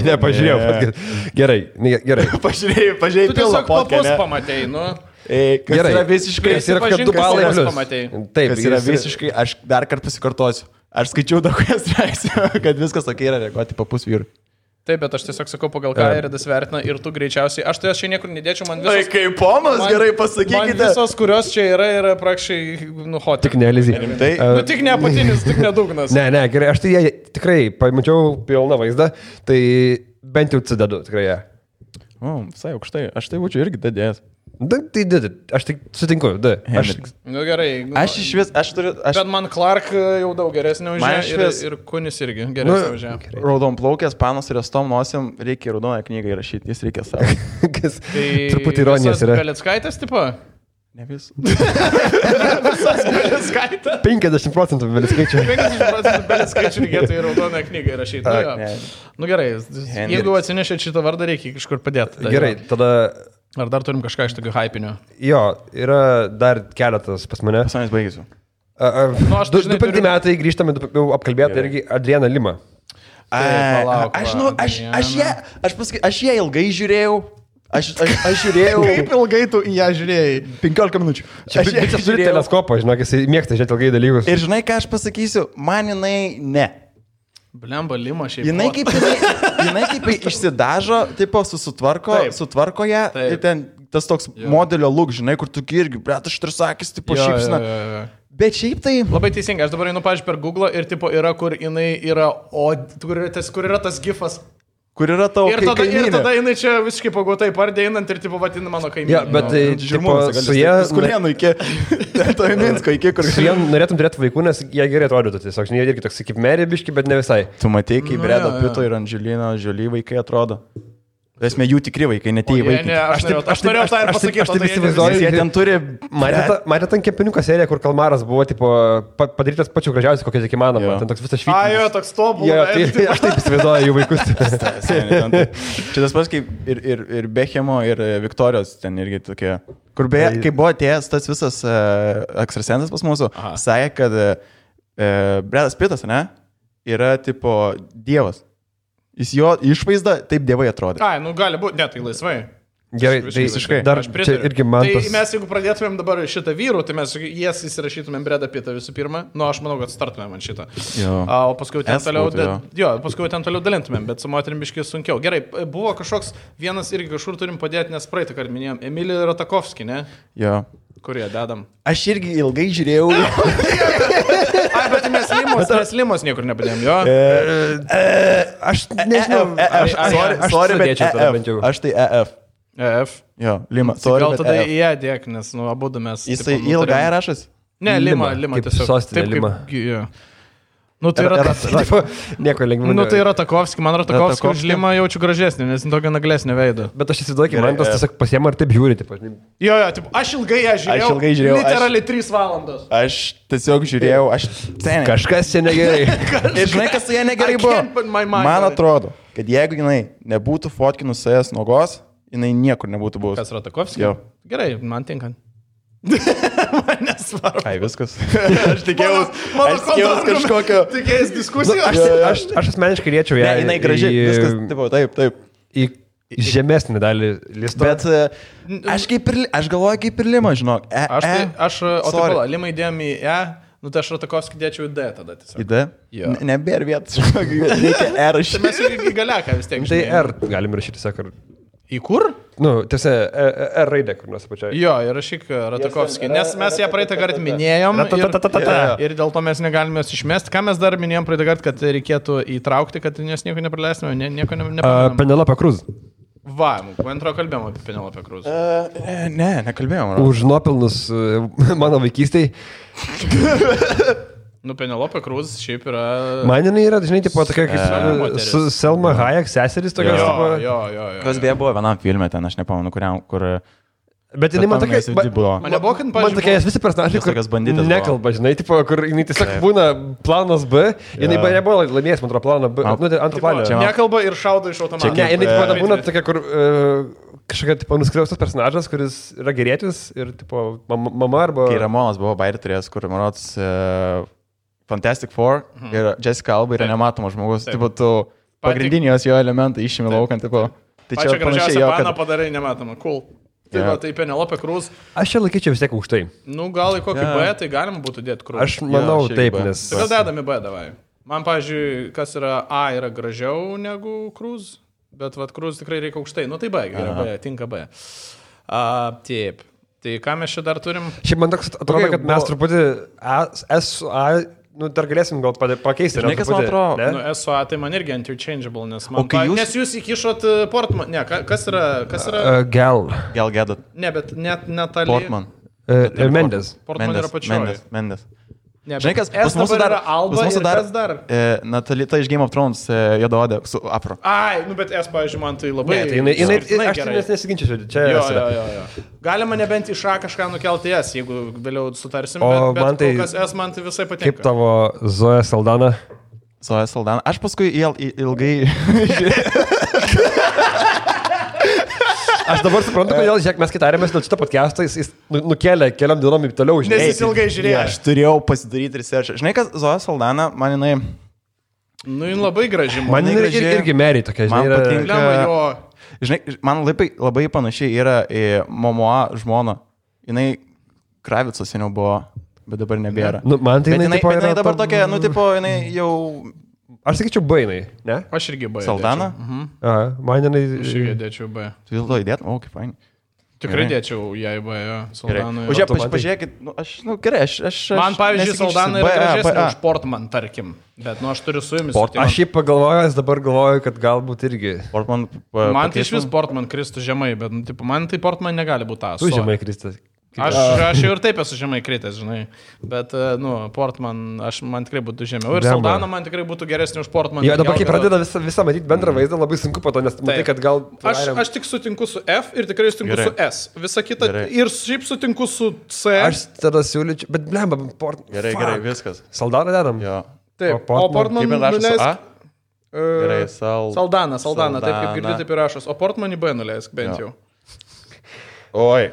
Ne, pažiūrėjau. Gerai. Pažiūrėjau pilną podcast. Tu tiesiog pamatėjai, nu. Kas yra visiškai... Kas yra, kad 2 balai plius. Taip, kas yra visiškai... Aš dar kartą pasikartosiu. Aš skaičiau daug straipsnių, kad viskas tokia yra reaguoti papus vyrų. Taip, bet aš tiesiog sakau, pagal ką Eridas vertina ir tu greičiausiai. Aš tai aš čia niekur nedėčiau, man visos... Tai kaip ponas, gerai pasakykite. Man visos, kurios čia yra praktiškai, hot. Tik ne, Lizy. Tik ne apatinis, tik ne dugnas. Ne, gerai, aš tai tikrai pamačiau pilną vaizdą, tai bent jau cidedu, tikrai jie. Visai aukštai, aš tai būčiau irgi dadėjęs. Tai aš tik sutinku, Nu gerai. Aš turiu... Bet man Clark jau daug geresnė už ją ir Kunis irgi geresnė už ją. Raudonplaukės panos ir estom nosim reikia raudoną knygą įrašyti, jis reikia savo. Truputį ironijos yra. Belickaitės tipo? Ne vis. Visas Belickaitė? 50% Belickaitė. 50% Belickaitė reikėtų į raudoną knygą įrašyti. Nu gerai, jeigu atsinešėt šitą vardą, reikia kažkur padėti. Gerai, tada... Ar dar turim kažką iš tokių hypinių? Jo, yra dar keletas pas mane. Pas manęs baigėsiu. 25 metai grįžtame, jau apkalbėti irgi Adriana Lima. Aš ją ilgai žiūrėjau. Aš žiūrėjau. Kaip ilgai tu į ją žiūrėjai? 15 minučių. Aš turiu teleskopą, žinok, jis mėgsta žiūrėti ilgai dalykus. Ir žinai, ką aš pasakysiu, man jinai ne. Blemba Lima šiaip. Jinai kaip išsidažo, tipo sutvarko ją ir ten tas toks modelio look, žinai, kur tu irgi, bret, aš trisakys, tipo šypsina. Bet šiaip tai... Labai teisingai, aš dabar einu, pavyzdžiui, per Google ir tipo yra, kur jinai yra, kur yra tas gifas. Kur yra tavo kaimynė. Ir tada jinai čia visiškai pagotai pardė einant ir tipo vadina mano kaimynė. Ja, bet su jie... Skulėnų iki... To Minsko iki, kur... Su jie norėtum turėti vaikų, nes jie gerai atrodytų tiesiog. Jie irgi toks kaip Mary biški, bet ne visai. Tu matei, kaip Bredo Pito ir Angelina Jolie vaikai atrodo. Esmė jų tikri vaikai, ne tie vaikai. Aš norėjau tą ir pasakyti. Aš taip įsivaizduoju, jie ten turi... Matėte ant kepiniuko seriją, kur kalmaras buvo tipo, padarytas pačiu gražiausiu, kokia tik įmanoma. Ten toks visas švytis. Jo, toks tobulas. Aš taip įsivaizduoju jų vaikus. Čia tas pats kaip ir Bechemo, ir Viktorijos ten irgi tokie. Kur beje, kai buvo atėjęs tas visas ekstrasensas pas mūsų, sakė, kad Bredas Pitas, ne, yra tipo dievas. Jis jo išvaizda taip dievai atrodo. Ai, nu gali būti, ne, tai laisvai. Gerai, tai visiškai. Dar čia irgi man tas... Tai mes, jeigu pradėtumėm dabar šitą vyrų, tai mes jas įsirašytumėm Bredą Pitą visų pirma. Nu, aš manau, kad startumėm ant šitą. O paskui ten toliau dalintumėm, bet su moterim biškai sunkiau. Gerai, buvo kažkoks vienas irgi kažkur turim padėti, nes praeitą kartą minėjom. Emilija Ratakovskį, ne? Jo. Kurie dedam? Aš irgi ilgai žiūrėjau. Ai, bet mes limos niekur nepadėjom, jo? Aš nežinau. Aš tai EF. EF? Jo, Lima. Gal tada į ją dėk, nes nu abudu mes... Jisai ilgai rašas? Ne, Lima tiesiog. Sostinė Lima. Nu, tai yra... Nieko lengviau. Nu, tai yra Ratakovskį. Man Ratakovskį už Limą jaučiu gražesnį, nes tokio naglesnio veido. Bet aš įsivaizduoju, man tas tiesiog pasiema ir taip žiūri. Jo, aš ilgai ją žiūrėjau. Literaliai 3 valandos. Aš tiesiog žiūrėjau, kažkas čia negerai. Ir žinai, kas su ją negerai buvo? Man atrodo, kad jeigu jinai nebūtų fotkinus jas nogos, jinai niekur nebūtų buvus. Kas Ratakovskį? Jo. Gerai, man tinka. Man nesvarbu. Ai, viskas. Aš tikėjausi kažkokio... Tikėjausi diskusijos. Aš asmeniškai riečiau ją. Ne, jinai gražiai. Viskas, taip. Į žemesnį dalį listo. Bet aš galvoju kaip ir Lima, žinok. Lima įdėjom į E, nu tai aš Ratakovskį dėčiau į D tada tiesiog. Į D? Nebėr vietas, reikia R rašyti. Tai mes irgi galiaką vis tiek. Tai R galim rašyti, sakar. Į kur? Nu, tiesa, R raidė, kur nors apačioje. Jo, ir rašyk Ratakovskį, nes mes ją praeitą kartą minėjom ir dėl to mes negalime jos išmesti. Ką mes dar minėjom praeitą kartą, kad reikėtų įtraukti, kad nes nieko nepraleistume, nieko nepaminėjom. Penelope Cruz. Va, man atrodo kalbėjom apie Penelope Cruz. Nekalbėjom. Už nuopelnus mano vaikystėj. Nu, Penelope Cruz šiaip yra... Man jinai yra, žinai, tipo tokia kaip su Selma Hayek seseris tokios. Jo. Kas beje buvo vienam filme ten, aš nepamenu, kur... Bet jinai man tokia... Man nebuvo, kad man tokia visi personažai, kur nekalba, žinai, tipo, kur jinai tiesiog būna planas B, jinai nebuvo laimėjęs, man atrodo, planą B, nu, tai antrą planą. Nekalba ir šaudo iš automato. Ne, jinai būna tokia, kur kažkokia, tipo, nuskriaustas personažas, kuris yra gerėtis ir, tipo, mama arba... Kai Ramonas buvo bairį turėjęs, kur, man rodos, Fantastic Four ir Jessica Alba yra nematomas žmogus. Tipo, tu pagrindinės jo elementai išėmė laukant, tipo. Tai čia gražiausia paną padarai nematoma. Cool. Tai Penelope Cruz. Aš čia laikyčiau vis tiek aukštai. Nu, gal į kokį B, tai galima būtų dėti Cruz. Aš manau taip, nes... Tai gal dedami B, davai. Man, pavyzdžiui, kas yra A yra gražiau negu Cruise, bet vat Cruise tikrai reikia aukštai. Nu tai B, gerai, B, tinka B. Taip. Tai ką mes čia dar turim? Šiaip man toks atrodo, kad mes truputį S su A, dar galėsim gal pakeisti. Žinai, kas man atrodo? Nu, S su A tai man irgi interchangeable, nes nes jūs įkišot Portman. Ne, kas yra? Gal Gadot. Ne, bet net Natalie. Portman. Mendes. Portman yra pačioje. Mendes. Ne, žinai, kas pas mūsų dar Alba ir kas dar? Natalita iš Game of Thrones, juodaodė su Afro. Ai, nu bet pavyzdžiui, man tai labai... Ne, tai aš nesiginčiu, čia... Jo. Galima nebent iš A kažką nukelti S, jeigu vėliau sutarsim, bet kol kas S man tai visai patinka. Kaip tavo Zoja Saldana? Zoja Saldana. Aš paskui ilgai... Aš dabar suprantu, kodėl, žiūrėk, mes kitarėmės dėl šito podcast'o, jis nukėlė keliom dienom į toliau, žinai. Nes jis ilgai žiūrėjo. Aš turėjau pasidaryti research. Žinai, kas Zoja Saldana, man jinai... Nu, jin labai graži. Man jinai irgi meri tokia, žinai. Man patinka... Žinai, man labai panašiai yra į Momoa žmona. Jinai Kravicos seniau buvo, bet dabar nebėra. Nu, man tai jinai dabar tokia, nu, tipo, jinai jau... Aš sakyčiau B, ne? Aš irgi B. Saldana? Aha, man jinai... Aš irgi dėčiau B. Tu vėl to įdėt? O, kaip fain. Tikrai dėčiau ją į B, jo. Saldana. O žiūrėk, pažiūrėkit, gerai, aš... Man, pavyzdžiui, Saldana yra gražesnė už Portman, tarkim. Bet, aš turiu su jumis. Aš šiaip pagalvojęs, dabar galvoju, kad galbūt irgi... Portman... Man tai iš vis Portman kristų žemai, bet, man tai Portman negali būti tas. Tu žemai kristas. Aš jau ir taip esu žemai kritęs, žinai, bet, Portman, man tikrai būtų žemiau. Ir Saldana man tikrai būtų geresnė už Portman. Jo, dabar kai pradeda visą matyti bendrą vaizdą, labai sunku po to, nes matai, kad gal... Aš tik sutinku su F ir tikrai sutinku su S. Visa kita ir šiaip sutinku su C. Aš tada siūlyčiau, bet blemba, Portman. Gerai, viskas. Saldaną dedam? Jo. Taip, o Portman nuleisk... Gerai, Saldana, taip kaip girdi, taip ir rašos. O Portman į B nuleisk bent jau. Oi.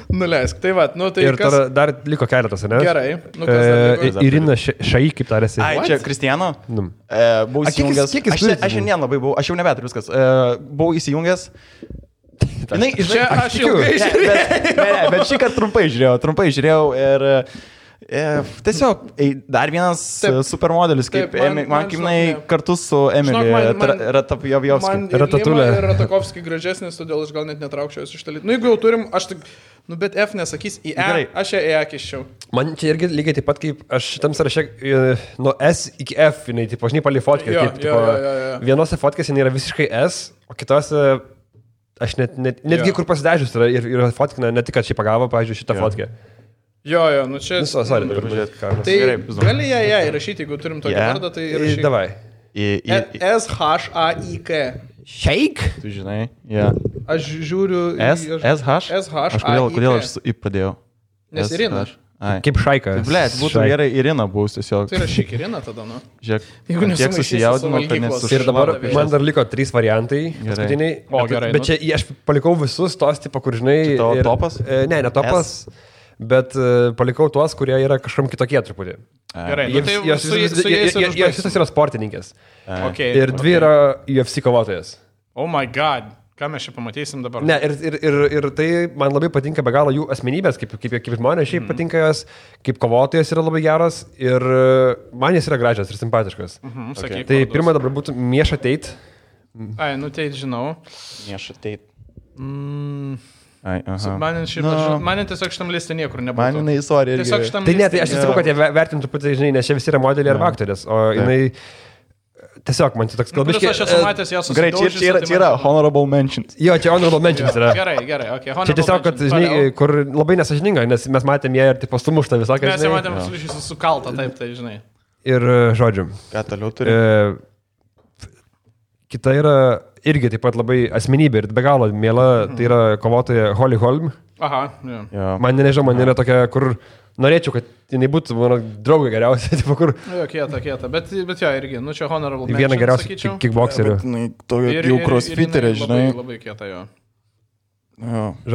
Nuleisk, tai va, tai ir kas... dar liko keletas, ne? Gerai, kas dar liko? Irina Šai, kaip tarėsi. Ai, čia Kristiano? Buvau įsijungęs. Aš šiandien labai buvau, aš jau nebeturiu viskas. Buvau įsijungęs. Čia aš ilgai žiūrėjau. Bet šį kartą trumpai žiūrėjau ir... Tiesiog, dar vienas supermodelis, kaip man kartu su Emily Ratapjovski. Lima ir Ratakovski gražesnis, todėl aš gal net netraukčiau iš talyt. Nu, jeigu jau turim, aš tik, bet F nesakys į E, aš ją E kiščiau. Man čia irgi lygiai taip pat, kaip aš šitam sąraše nuo S iki F, jinai, tipo, žinai, palį fotkę. Vienose fotkėse jinai yra visiškai S, o kitose, aš netgi kur pasidažius yra ir fotkina, ne tik, kad šį pagavo, pavyzdžiui, šitą fotkę. Jo, nu čia... Tai gali ją įrašyti, jeigu turim tokį vardą, tai įrašyti. Davai. S-H-A-I-K. Shake? Tu žinai, jo. Aš žiūriu... S-H? S-H-A-I-K. Kodėl aš į pradėjau? Nes Irina. Kaip Šaika. Blėt, būtų gerai Irina bus tiesiog. Tai rašyk Irina tada, nu. Žiūrėk, tiek susijaudino, kad nesusijaudino. Ir dabar man dar liko 3 variantai. Paskutiniai. O, gerai. Bet čia aš palikau visus tos, tipo, kur žinai... Čia topas? Ne topas. Bet palikau tuos, kurie yra kažkam kitokie truputį. Gerai, jos visos yra sportininkės. Ir 2 yra UFC kovotojas. Oh my god, ką mes čia pamatysim dabar? Ne, ir tai man labai patinka be galo jų asmenybės, kaip žmonės šiaip patinka jos, kaip kovotojas yra labai geras ir man jis yra gražias ir simpatiškas. Tai pirma dabar būtų Miesha Tate. Ai, nu Tate žinau. Miesha Tate. Man tiesiog šitam listė niekur nebūtų. Man jinai istorija. Tai ne, tai aš įsakau, kad jie vertintų pati, žinai, nes čia visi yra modeliai arba aktorės, o jinai tiesiog man čia toks kalbiškai. Aš esu matęs ją susidaužys. Gerai, čia yra honorable mentions. Jo, čia honorable mentions yra. Gerai, ok. Čia tiesiog, kad, žinai, kur labai nesažininga, nes mes matėm ją ir tipo sumuštą visokią. Mes ją matėm sukaltą, taip, tai žinai. Ir žodžiu. Ką toliau turi? Kita yra irgi taip pat labai asmenybė ir be galo mėla, tai yra kovotoja Holly Holm. Aha, jo. Man nežinau, man yra tokia, kur norėčiau, kad jinai būtų mano draugė geriausia, tipo kur... Jo, kieta, bet jo, irgi, nu čia honorable mention, viena geriausia kickboxerių. Jau crossfiterė, žinai. Labai kieta, jo.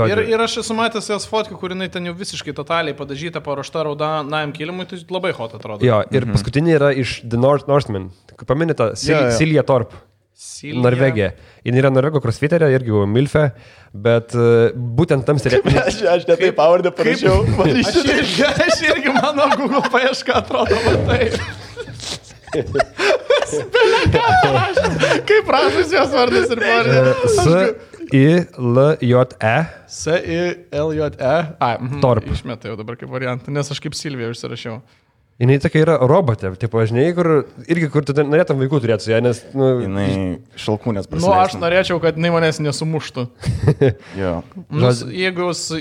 Ir aš esu matęs jos fotkę, kur jinai ten jau visiškai totaliai padažyta, paruošta raudonajam kilimui, tai labai hot atrodo. Jo, ir paskutinė yra iš The Northman. Paminėta Cilija Torp. Silvija. Norvegija. Jis yra Norvego crossfiterė, irgi Milfe, bet būtent tam serialui. Aš ne taip pavardę parašiau. Aš irgi mano Google paieška atrodo matai. Kaip prašus jos vardas ir pavardė? S-I-L-J-E. S-I-L-J-E. Torp. Išmetai jau dabar kaip variantą, nes aš kaip Silvija užsirašiau. Jinai tokia yra robotė, tipo, žinai, kur tu norėtum vaikų turėti su ją, nes... Jinai šalkūnės prasileistum. Aš norėčiau, kad jinai manęs nesumuštų. Jo. Jeigu jūs...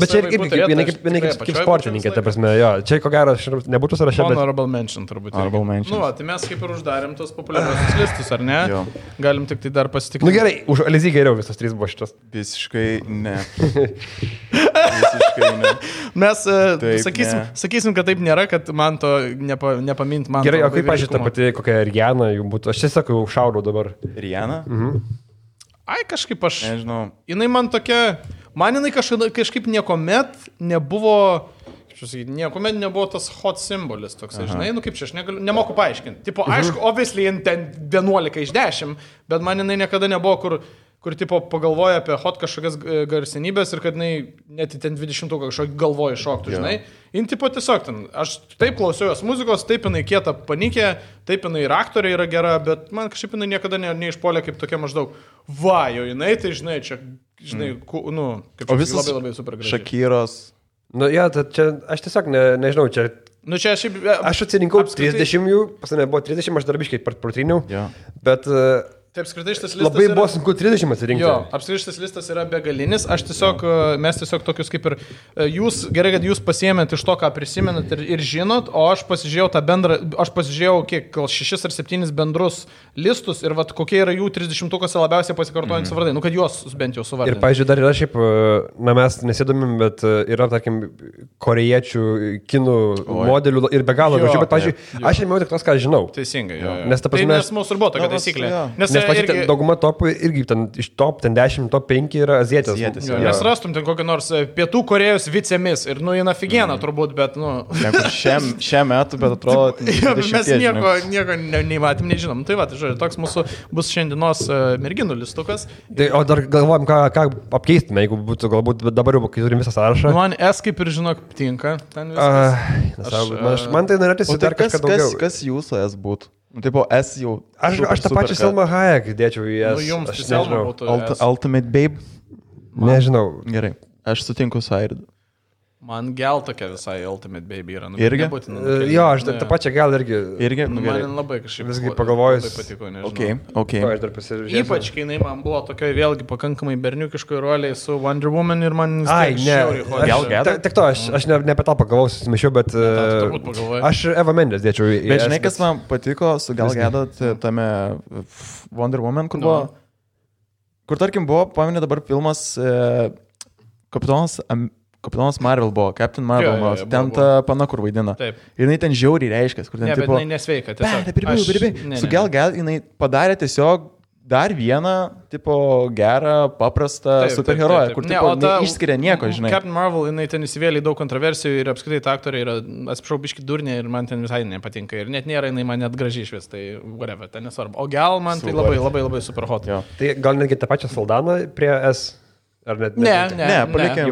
Bet čia jinai kaip sportininkė, ta prasme, jo. Čia ko gero nebūtų sąraše, bet... Honorable mention turbūt. Honorable mention. Tai mes kaip ir uždarėm tos populiariausius listus, ar ne? Jo. Galim tik tai dar pasitikti. Gerai, už Alizį geriau visas 3 buvo šitas. Visiškai ne. Visiškai ne. Mes sakysim, kad taip nėra, kad man to nepamint man. Gerai, o kaip pažiūrėjau, ta pati kokia Rihanna jų būtų? Aš tiesiog jau šaudau dabar. Rihanna? Ai, kažkaip aš... Nežinau. Jinai man tokia... Man jinai kažkaip niekuomet nebuvo... Niekuomet nebuvo tas hot simbolis toks, žinai, kaip čia, aš nemoku paaiškinti. Tipo, aišku, obviously, ten 11 iš 10, bet man jinai niekada nebuvo, kur tipo pagalvoja apie hot kažkokias garsenybės ir kad jinai net ten 20 kažkokį galvoja šoktų, žinai. Jin tipo tiesiog ten, aš taip klausiau jos muzikos, taip jinai kieta panikė, taip jinai ir aktorė yra gera, bet man kažkaip jinai niekada neišpuolė kaip tokia maždaug, va, jo jinai, tai žinai, čia, žinai, kaip čia labai super gražiai. Šakyros. Ja, čia aš tiesiog nežinau, čia... Čia aš atsirinkau 30 jų, pas mane buvo 30, aš darbiškai protryniau, bet... Taip, apskritai šitas listas labai buvo sunku 30 atsirinkti. Jo, apskritai šitas listas yra begalinis. Mes tiesiog tokius kaip ir jūs, gerai, kad jūs pasiėmėt iš to, ką prisimenat ir žinot, o aš pasižiūrėjau tą bendrą, aš pasižiūrėjau kiek, gal 6 ar 7 bendrus listus ir vat kokie yra jų 30-ukose labiausiai pasikartojantys vardai, kad juos bent jau suvardinti. Ir, pavyzdžiui, dar yra šiaip, mes nesėdomim, bet yra, tarkim, korėjiečių, kinų modelių ir be galo gražių, bet, pavyzdžiui, aš ėmiau tik tos, ką žinau. Teisingai, jo. Nes ta prasme, nes mūsų ir buvo tokia taisyklė. Irgi... dauguma topų irgi ten, iš top 10, top 5 yra azietės. Nes rastum ten kokią nors Pietų Korėjos vicemis ir jina figieną turbūt, bet šiam metu, bet atrodo... Mes nieko neįmatėm, nežinom. Tai va, tai žodžiu, toks mūsų bus šiandienos merginų listukas. Tai, o dar galvojam, ką apkeistume, jeigu būtų galbūt dabar jau, kai turim visą sąrašą. Man S kaip ir žinok tinka. Man tai norėtųsi dar kažką daugiau. Kas jūsų S būtų? Tipo S jau. Aš tą pačią Selma Hayek dėčiau į S. Jums aš nežinau. Ultimate Babe? Nežinau. Gerai, aš sutinku su Airidu. Man gal tokia visai Ultimate Baby yra. Irgi? Jo, aš tą pačią gal irgi. Irgi? Man labai kažkaip. Visgi pagalvojus. Labai patiko, nežinau. Okay. Aš dar pasižiūrėjau. Ypač, kai jinai man buvo tokioj vėlgi pakankamai berniukiškoj roliai su Wonder Woman ir man... Ai, ne. Tik to, aš ne apie tą pagalvojau, susimešiau, bet... Aš Eva Mendes dėčiau į... Bet žinai, kas man patiko su Gal Gadot tame Wonder Woman, kur buvo... Kur, tarkim, buvo, paminė dabar filmas Kapitonas Marvel buvo, Captain Marvel, ten ta pana, kur vaidina. Taip. Ir jinai ten žiauriai reiškės, kur ten tipo... Ne, bet jinai nesveika, tiesiog. Su Gal Gadot jinai padarė tiesiog dar vieną, tipo, gerą, paprastą superheroją, kur, tipo, neišskiria nieko, žinai. Captain Marvel, jinai ten įsivėlė daug kontroversijų ir apskritai ta aktorė yra, atsiprašau, biški durnė ir man ten visai nepatinka. Ir net nėra, jinai man net gražiai išvis, tai whatever, ten nesvarbu. O Gal man tai labai super hot. Jo. Tai gal netgi tą pačią Saldaną prie S... Ne, palikėm.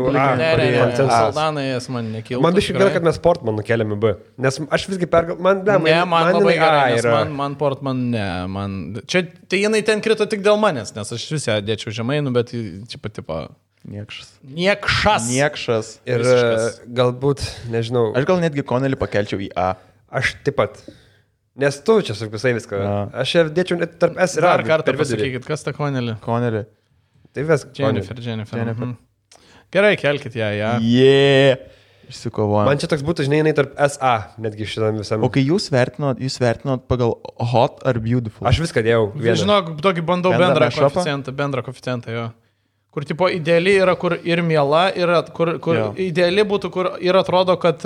Saldanai jas man nekiltų. Man biškai gerai, kad mes Portman nukeliam į B. Nes aš visgi man labai gerai, man Portman, čia, tai jinai ten krito tik dėl manęs, nes aš vis ją dėčiau žemai, bet čia patipo... Niekšas. Ir galbūt, nežinau... Aš gal netgi Connelly pakelčiau į A. Aš taip pat. Nes tu čia su visai viską. Aš ją dėčiau net tarp S ir A. Dar kartą pasakykit, kas ta Connelly? Tai vis Jennifer. Gerai, kelkit ją. Išsikovojom. Man čia toks būtų, žinai, tarp SA, netgi šitam visam. O kai jūs vertinot pagal hot ar beautiful? Aš viską dėjau. Žinok, tokį bandau bendrą koeficientą, jo. Kur tipo ideali yra, kur ir miela, yra, kur ideali būtų, kur ir atrodo, kad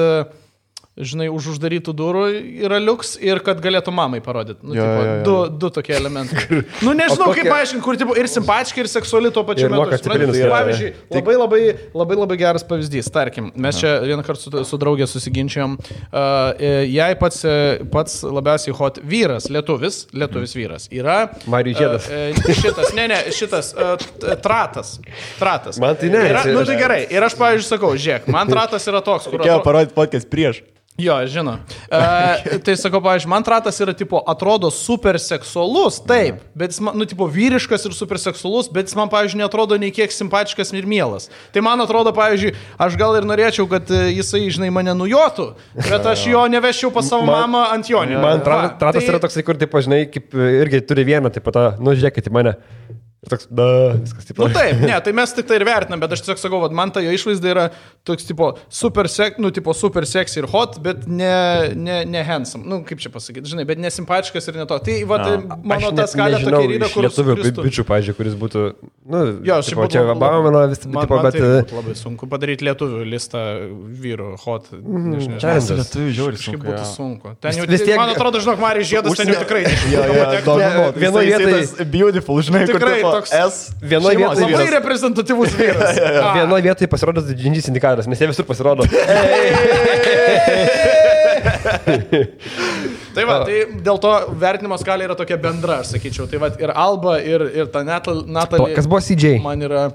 žinai, už uždarytų durų yra liuks ir kad galėtų mamai parodyti. Nu, tipo, du tokie elementai. Nu, nežinau, kaip paaiškinti, kur tipo, ir simpatiški, ir seksuali tuo pačiu metu. Pavyzdžiui, labai geras pavyzdys. Tarkim, mes čia vieną kartą su draugė susiginčiom. Jai pats labiausiai hot vyras, lietuvis vyras yra... Marijus Žiedas. Šitas Tratas. Man tai ne. Nu tai gerai. Ir aš, pavyzdžiui, sakau, žiūrėk, man Tratas yra toks, kur... Reikėjo parodyti podcast prieš. Jo, žinau. Tai sakau, pavyzdžiui, man Tratas yra, tipo, atrodo super seksualus, taip, bet jis, nu, tipo, vyriškas ir super seksualus, bet jis man, pavyzdžiui, netrodo nei kiek simpatiškas ir mielas. Tai man atrodo, pavyzdžiui, aš gal ir norėčiau, kad jisai, žinai, mane nujotų, bet aš jo neveščiau pas savo mamą ant jonio. Man Tratas yra toksai, kur, tipo, žinai, kaip irgi turi vieną, tipo, nu, žiūrėkit į mane. Toks, viskas taip. Nu taip, ne, tai mes tik tai ir vertinam, bet aš tiesiog sakau, man ta jo išvaizda yra toks tipo super sexy ir hot, bet ne handsome. Nu, kaip čia pasakyti, žinai, bet nesimpatiškas ir ne to. Tai mano ta skalė tokia yra, kur... Lietuvių bičių, pavyzdžiui, kuris būtų, nu, jo, tipo, čia Obama, vis tipo, bet... Tai labai sunku padaryti lietuvių listą vyrų hot. Čia lietuvių žiauri sunku. Būtų sunku. Ten jau, man atrodo, žinok, Marijus Žiedas ten jau tikrai. Vienoje vietoje beautiful, žinai, kur toks vienoje vietoje labai reprezentatyvus vyras. Vienoje vietoje pasirodo didžiulis indikatorius, nes jie visur pasirodo. Tai va, tai dėl to vertinimo skalė yra tokia bendra, aš sakyčiau. Tai va, ir Alba, ir ta Natalie. Kas buvo CJ? Man yra...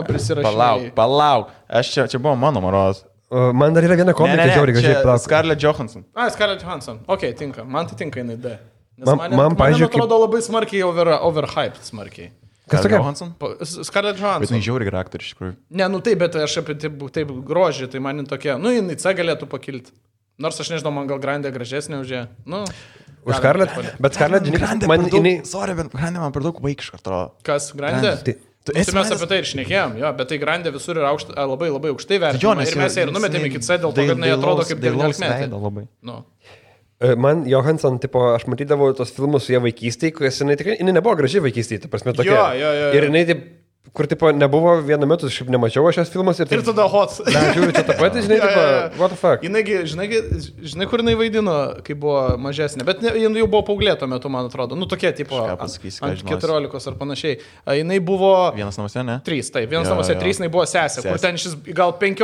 prisirašinėjai. Palauk. Čia buvo mano maros. Man dar yra viena komikė, žiauriai gražiai. Scarlett Johansson. Scarlett Johansson. Ok, tinka. Man tai tinka jinai D. Man pavyzdžiui, atrodo labai smarkiai overhyped smarkiai. Kas tokia? Scarlett Johansson. Bet jinai žiauri gera aktorė iš tikrųjų. Ne, nu taip, bet aš apie taip grožį, tai man tokia, nu jinai C galėtų pakilti. Nors aš nežinau, man gal Grandė gražesnė už ją. Nu, už Scarlett, bet Scarlett, žinai, man jinai... Sorry, bet Grandė man per daug vaikiška atrodo. Kas, Grandė? Tai mes apie tai ir šnekėjom, jo, bet tai Grandė visur yra labai aukštai vertinama. Ir mes ją ir numetėm iki C dėl to, kad jinai atrodo kaip 19-metė. Man Johansson, tipo, aš matydavau tos filmus su ją vaikystėje, kurias jinai nebuvo graži vaikystėje, ta prasme tokia. Ir jinai, taip, kur, tipo, nebuvo vienu metu, aš nemačiau šios filmus. Ir tada hot. Na, žiūriu, čia tą patį, žinai, tipo, what the fuck. Žinai, kur jinai vaidino, kai buvo mažesnė, bet jinai jau buvo paauglė tuo metu, man atrodo. Nu, tokia, tipo, ant 14 ar panašiai. Jinai buvo... Vienas namuose, ne? 3, taip, vienas namuose 3, jinai buvo sesė, kur ten šis gal 5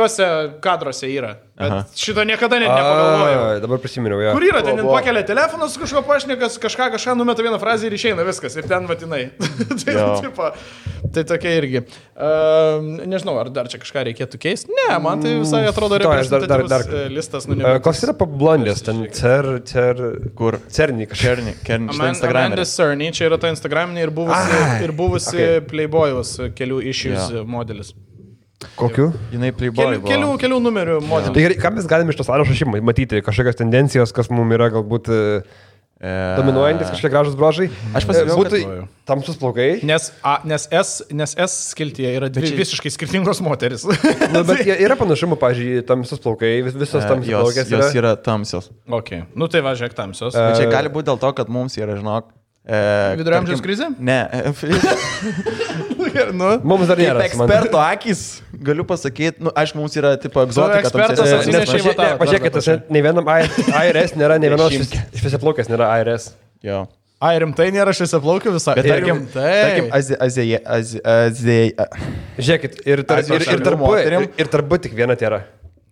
kadruose yra. Bet šito niekada net nepagalvojau. Dabar prisiminiau, jo. Kur yra, ten pakelia telefonas, kažko pašnekas, kažką numeta vieną frazę ir išeina viskas. Ir ten vatinai. Tai tokia irgi. Nežinau, ar dar čia kažką reikėtų keisti. Ne, man tai visai atrodo reprezentatyvus listas. Koks yra blondės? Ten kur? Cerny kažkas. Amanda Cerny, čia yra ta Instagraminė ir buvusi Playboy'us kelių issues modelis. Kokiu? Jinai Playboy. Kelių numerių modelis. Tai ką mes galime iš tos sąrašo matyti? Kažkokios tendencijos, kas mums yra galbūt dominuojantis, kažkokie gražus bruožai. Aš pasižiūrėjau, kad tamsus plaukai. Nes S skiltyje yra dvi visiškai skirtingos moteris. Bet yra panašumų, pavyzdžiui, tamsus plaukai, visos tamsios plaukės jos yra tamsios. Ok, nu tai važiuok tamsios. Bet čia gali būti dėl to, kad mums yra, žinok, Vidurio amžiaus krizė? Ne. Mums dar nėra. Eksperto akis, galiu pasakyti, aišku, mums yra tipo egzotika. Pažiūrėkite, ne vienam IRS nėra, ne vienos šviesiaplaukės nėra IRS. Jo. Ai, rimtai nėra šviesiaplaukių visą. Bet tarkim, Žiūrėkit, ir tarp tik viena tėra.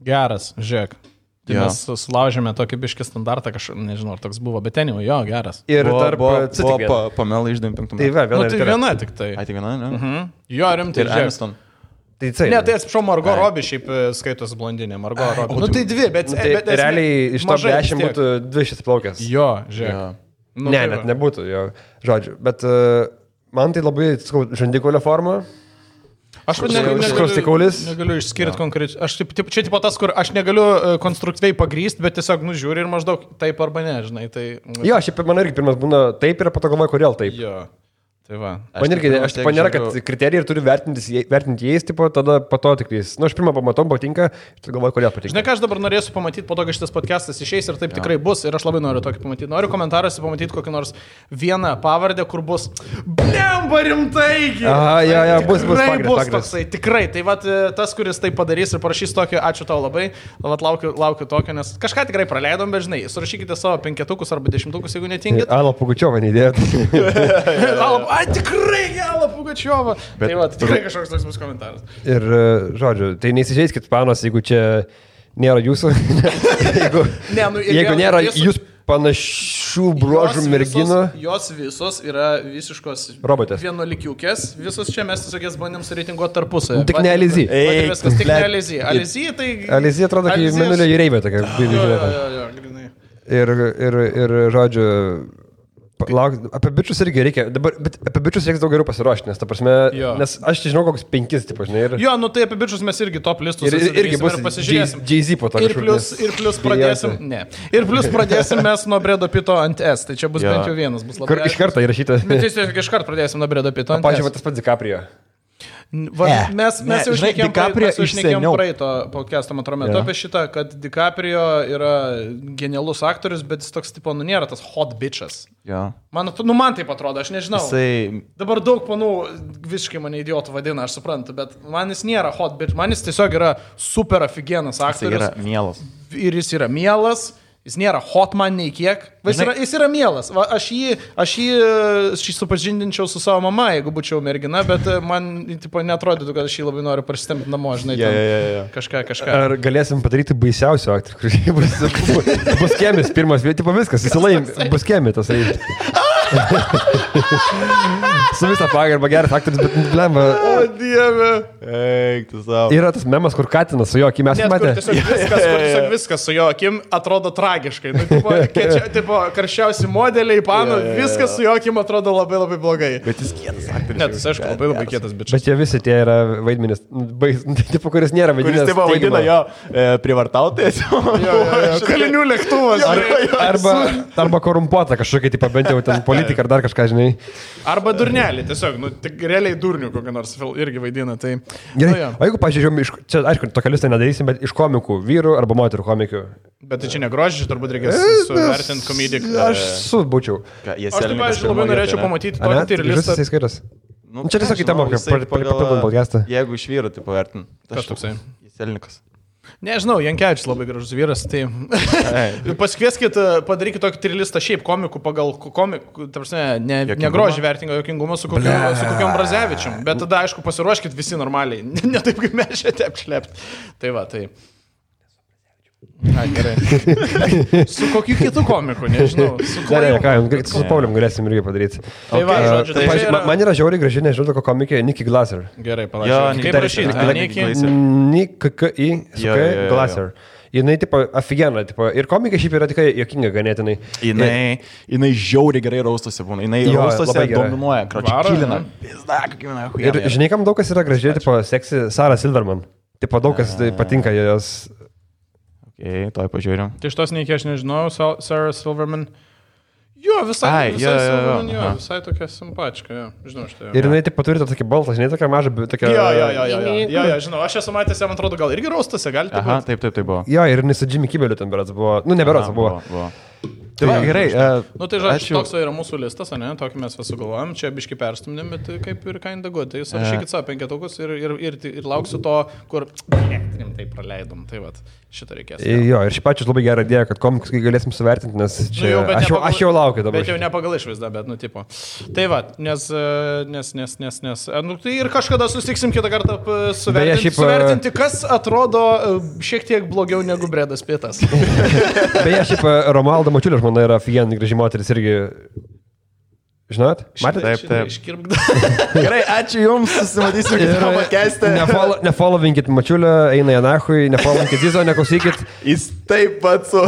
Geras, žiūrėk. Tai mes sulaužėme tokį biškį standartą, nežinau, ar toks buvo, bet ten jau, jo, geras. Ir tarp buvo Pamela iš 95 metų. Tai viena tik tai. Ai, tik viena, ne? Jo, rimtai. Ir Aniston. Ne, tai atsiprašau, Margot Robbie šiaip skaitos blondinė, Margot Robbie. Nu tai dvi, bet realiai iš to 10 būtų 2 šviesiaplaukės. Jo, žiūrėk. Ne, net nebūtų, jo, žodžiu. Bet man tai labai, žandikulio forma. Aš negaliu išskirti konkrečiai. Čia tipo tas, kur aš negaliu konstruktyviai pagrysti, bet tiesiog nužiūri ir maždaug taip arba ne, žinai. Tai... Jo, šiaip man irgi pirmas būna taip ir po to galvoju, kodėl taip. Jo. Tai va. Man irgi, aš tipo nėra, kad kriterijai ir turi vertinti jais, tipo, tada po to tik jais. Aš pirmą pamatau, patinka, ir galvoju, kodėl patinka. Žinai, ką aš dabar norėsiu pamatyti, po to, kai šitas podcastas išeis ir taip tikrai bus, ir aš labai noriu tokį pamatyti. Noriu komentaruose pamatyti kokį nors vieną pavardę, kur bus Blemba rimtai. Bus pagrindas. Toksai, tikrai. Tai vat, tas, kuris tai padarys ir parašys tokį, ačiū tau labai, vat laukiu tokio, nes kažką tikrai praleidom, bet žinai, surašykite savo 5 arba 10, jeigu netingit. Ala Pugačiova neįdėjot. Tikrai Ala Pugačiova. Tai vat, tikrai kažkoks toks bus komentaras. Ir, žodžiu, tai neįsižeiskit panos, jeigu čia nėra jūsų. Jeigu nėra jūs panašių bruožų merginų. Jos visos yra visiškos robotės. Vienuolikiukės. Visos čia mes tiesiog jas bandėm sureitinguoti tarpusavį. Tik ne Alizy. Viskas tik ne Alizy. Alizy tai... Alizy atrodo, kaip Mėnulio jūreivė tokia. Jo, grinai. Ir žodžiu... Apie bičius irgi reikia, bet apie bičius reikia daug geriau pasiruošti, nes, ta prasme, nes aš žinau kokius 5, tipo, žinai. Jo, nu tai apie bičius mes irgi top listus irgi bus pasižiūrėsim. Jay-Z po to. Ir plus pradėsim, Ir plus pradėsim mes nuo Bredo Pito ant S, tai čia bus bent jau vienas, bus labai. Kur iš karto įrašyta. Bet tiesiog iš karto pradėsim nuo Bredo Pito ant S. Pavyzdžiui, tas pats DiCaprio. Mes jau išnekėjom praeito podcast'o matro metu apie šitą, kad DiCaprio yra genialus aktorius, bet jis toks tipo, nėra tas hot bitches. Man taip atrodo, aš nežinau. Dabar daug panų visiškai mane idiotų vadina, aš suprantu, bet man jis nėra hot bitch, man jis tiesiog yra super aфиgenas aktorius. Jis yra mielas. Ir jis yra mielas. Jis nėra hot man nei kiek. Jis yra mielas. Aš jį supažindinčiau su savo mama, jeigu būčiau mergina, bet man tipo, neatrodytų, kad aš jį labai noriu prasitempti namo, žinai. Kažką. Ar galėsim padaryti baisiausių aktorių, kuris bus kėmis pirmas, tipo viskas, jis laim, bus kėmitas. Su visą pagarbą geras aktorius, bet blemba. O Dieve. Yra tas memas, kur Katinas su jo akim mes matė. Tiesiog viskas su jo akim atrodo tragiškai. Tipo, karščiausi modeliai, pano, viskas su jo akim atrodo labai labai blogai. Bet jis kietas aktorius. Ne, tas aišku labai kietas bičias. Bet jie visi tie yra vaidmenis, tipo, kuris nėra vaidmenis. Kuris tipo vaidina jo privartautojas. Kalinių lėktuvas. Arba korumpuota kažkokia, tipo, bent jau ten politika ar dar kažką, žinai. Arba durnelį, tiesiog, tik realiai durnių kokią nors irgi vaidina. Tai, gerai, o jeigu, pažiūrėjom, čia, aišku, tokią listą nedarysim, bet iš komikų, vyrų arba moterų komikių. Bet tai čia negrožiai, turbūt reikės suvertinti komediją. Aš subūčiau. Aš taip, pavyzdžiui, labai norėčiau pamatyti tokį listą. Čia tiesiog į temą, papildom podcastą. Jeigu iš vyrų, tai pavertin. Kas toksai? Jeselnikas. Nežinau, Jankevičius labai gražus vyras, tai pasikvieskit, padarykit tokį trilistą šiaip komikų pagal komikų, ne grožį vertingą jokingumą su kokiam Brazevičium, bet tada, aišku, pasiruoškit visi normaliai, ne taip kaip mes čia apšlept. Tai va, tai... Gerai. Su kokiu kitu komiku, nežinau. Su Paulium galėsim irgi padaryti. Tai va, žodžiu, man yra žiauriai graži, nežinau, toko komikė Nikki Glaser. Gerai, palauk. Kaip rašyti? Nikki Glaser. Jinai, tipo, aфигена, tipo, ir komika šiaip yra tikrai jokinga ganėtinai. Jinai žiauriai gerai raustosi būna. Jinai raustosi dominuoja, kročiakilina. Ir žinai, kam daug kas yra gražiai, tipo, seksi Sarah Silverman. Tipo, daug kas patinka jos... Toj pažiūrėjom. Tai šitos neiki aš nežinau, Sarah Silverman. Jo, visai tokia simpačka, žinau šitą. Ir jinai taip turi tokį baltą, žinai, tokia maža, tokia... Jo, žinau, aš esu matęs, man atrodo, gal irgi raustose, gali taip. Aha, taip buvo. Jo, ir jinai su Jimmy Kimmeliu ten berods buvo. Nu, neberods buvo. Tai gerai. Nu, tai žodžiu, toks yra mūsų listas, ne? Tokį mes visų galvojam, čia biški perstumdėm, bet kaip ir kinda good. Tai surašykit savo 5 ir lauksiu to, kur tai praleidom. Tai va, šitą reikės. Jo, ir šiaip pačius labai gerą idėją, kad komikus galėsim suvertinti, nes čia aš jau laukiu dabar. Bet jau ne pagal išvaizdą, bet, nu, tipo. Tai va, nes nu, tai ir kažkada susitiksim kitą kartą suvertinti, kas atrodo šiek tiek blogiau negu Bredas Pitas. Beje, šiaip Romualda Mačiulė žmona yra aфиgenai graži moteris irgi. Žinot? Matėte? Taip. Gerai, ačiū Jums, susimatysim kitą podcast'ą. Nefollowinkit Mačiulio, eina Janahui, nefollowinkit Zizo, neklausykit. Jis taip pat su...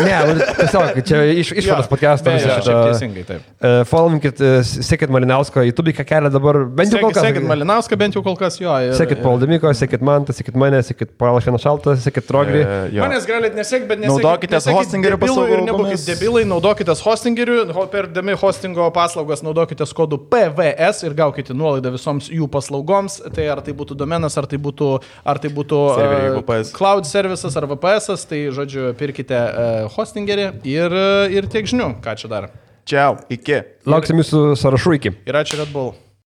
Ne, tiesiog, čia išvadas podcast'o. Teisingai, taip. Followinkit, sekit Malinausko, YouTube kelia dabar, bent jau kol kas. Sekit Malinauską, bent jau kol kas, jo. Sekit Paul Demiko, sekit Mantą, sekit mane, sekit Paulas Vienašaltą, sekit Trogrį. Manęs galit nesek, bet nesekit. Naudokitės hostingerių paslaugų. Ir nebūkit debilai, naudokitės hostingerių, perdami hostingo paslaugas naudokitės kodu PVS ir gaukite nuolaidą visoms jų paslaugoms. Tai ar tai būtų domenas, ar tai būtų cloud services ar VPS, tai žodžiu, pirkite hostingerį ir tiek žinių, ką čia dar. Čiau, iki. Lauksim jūsų sąrašų iki. Ir ačiū Red Bull.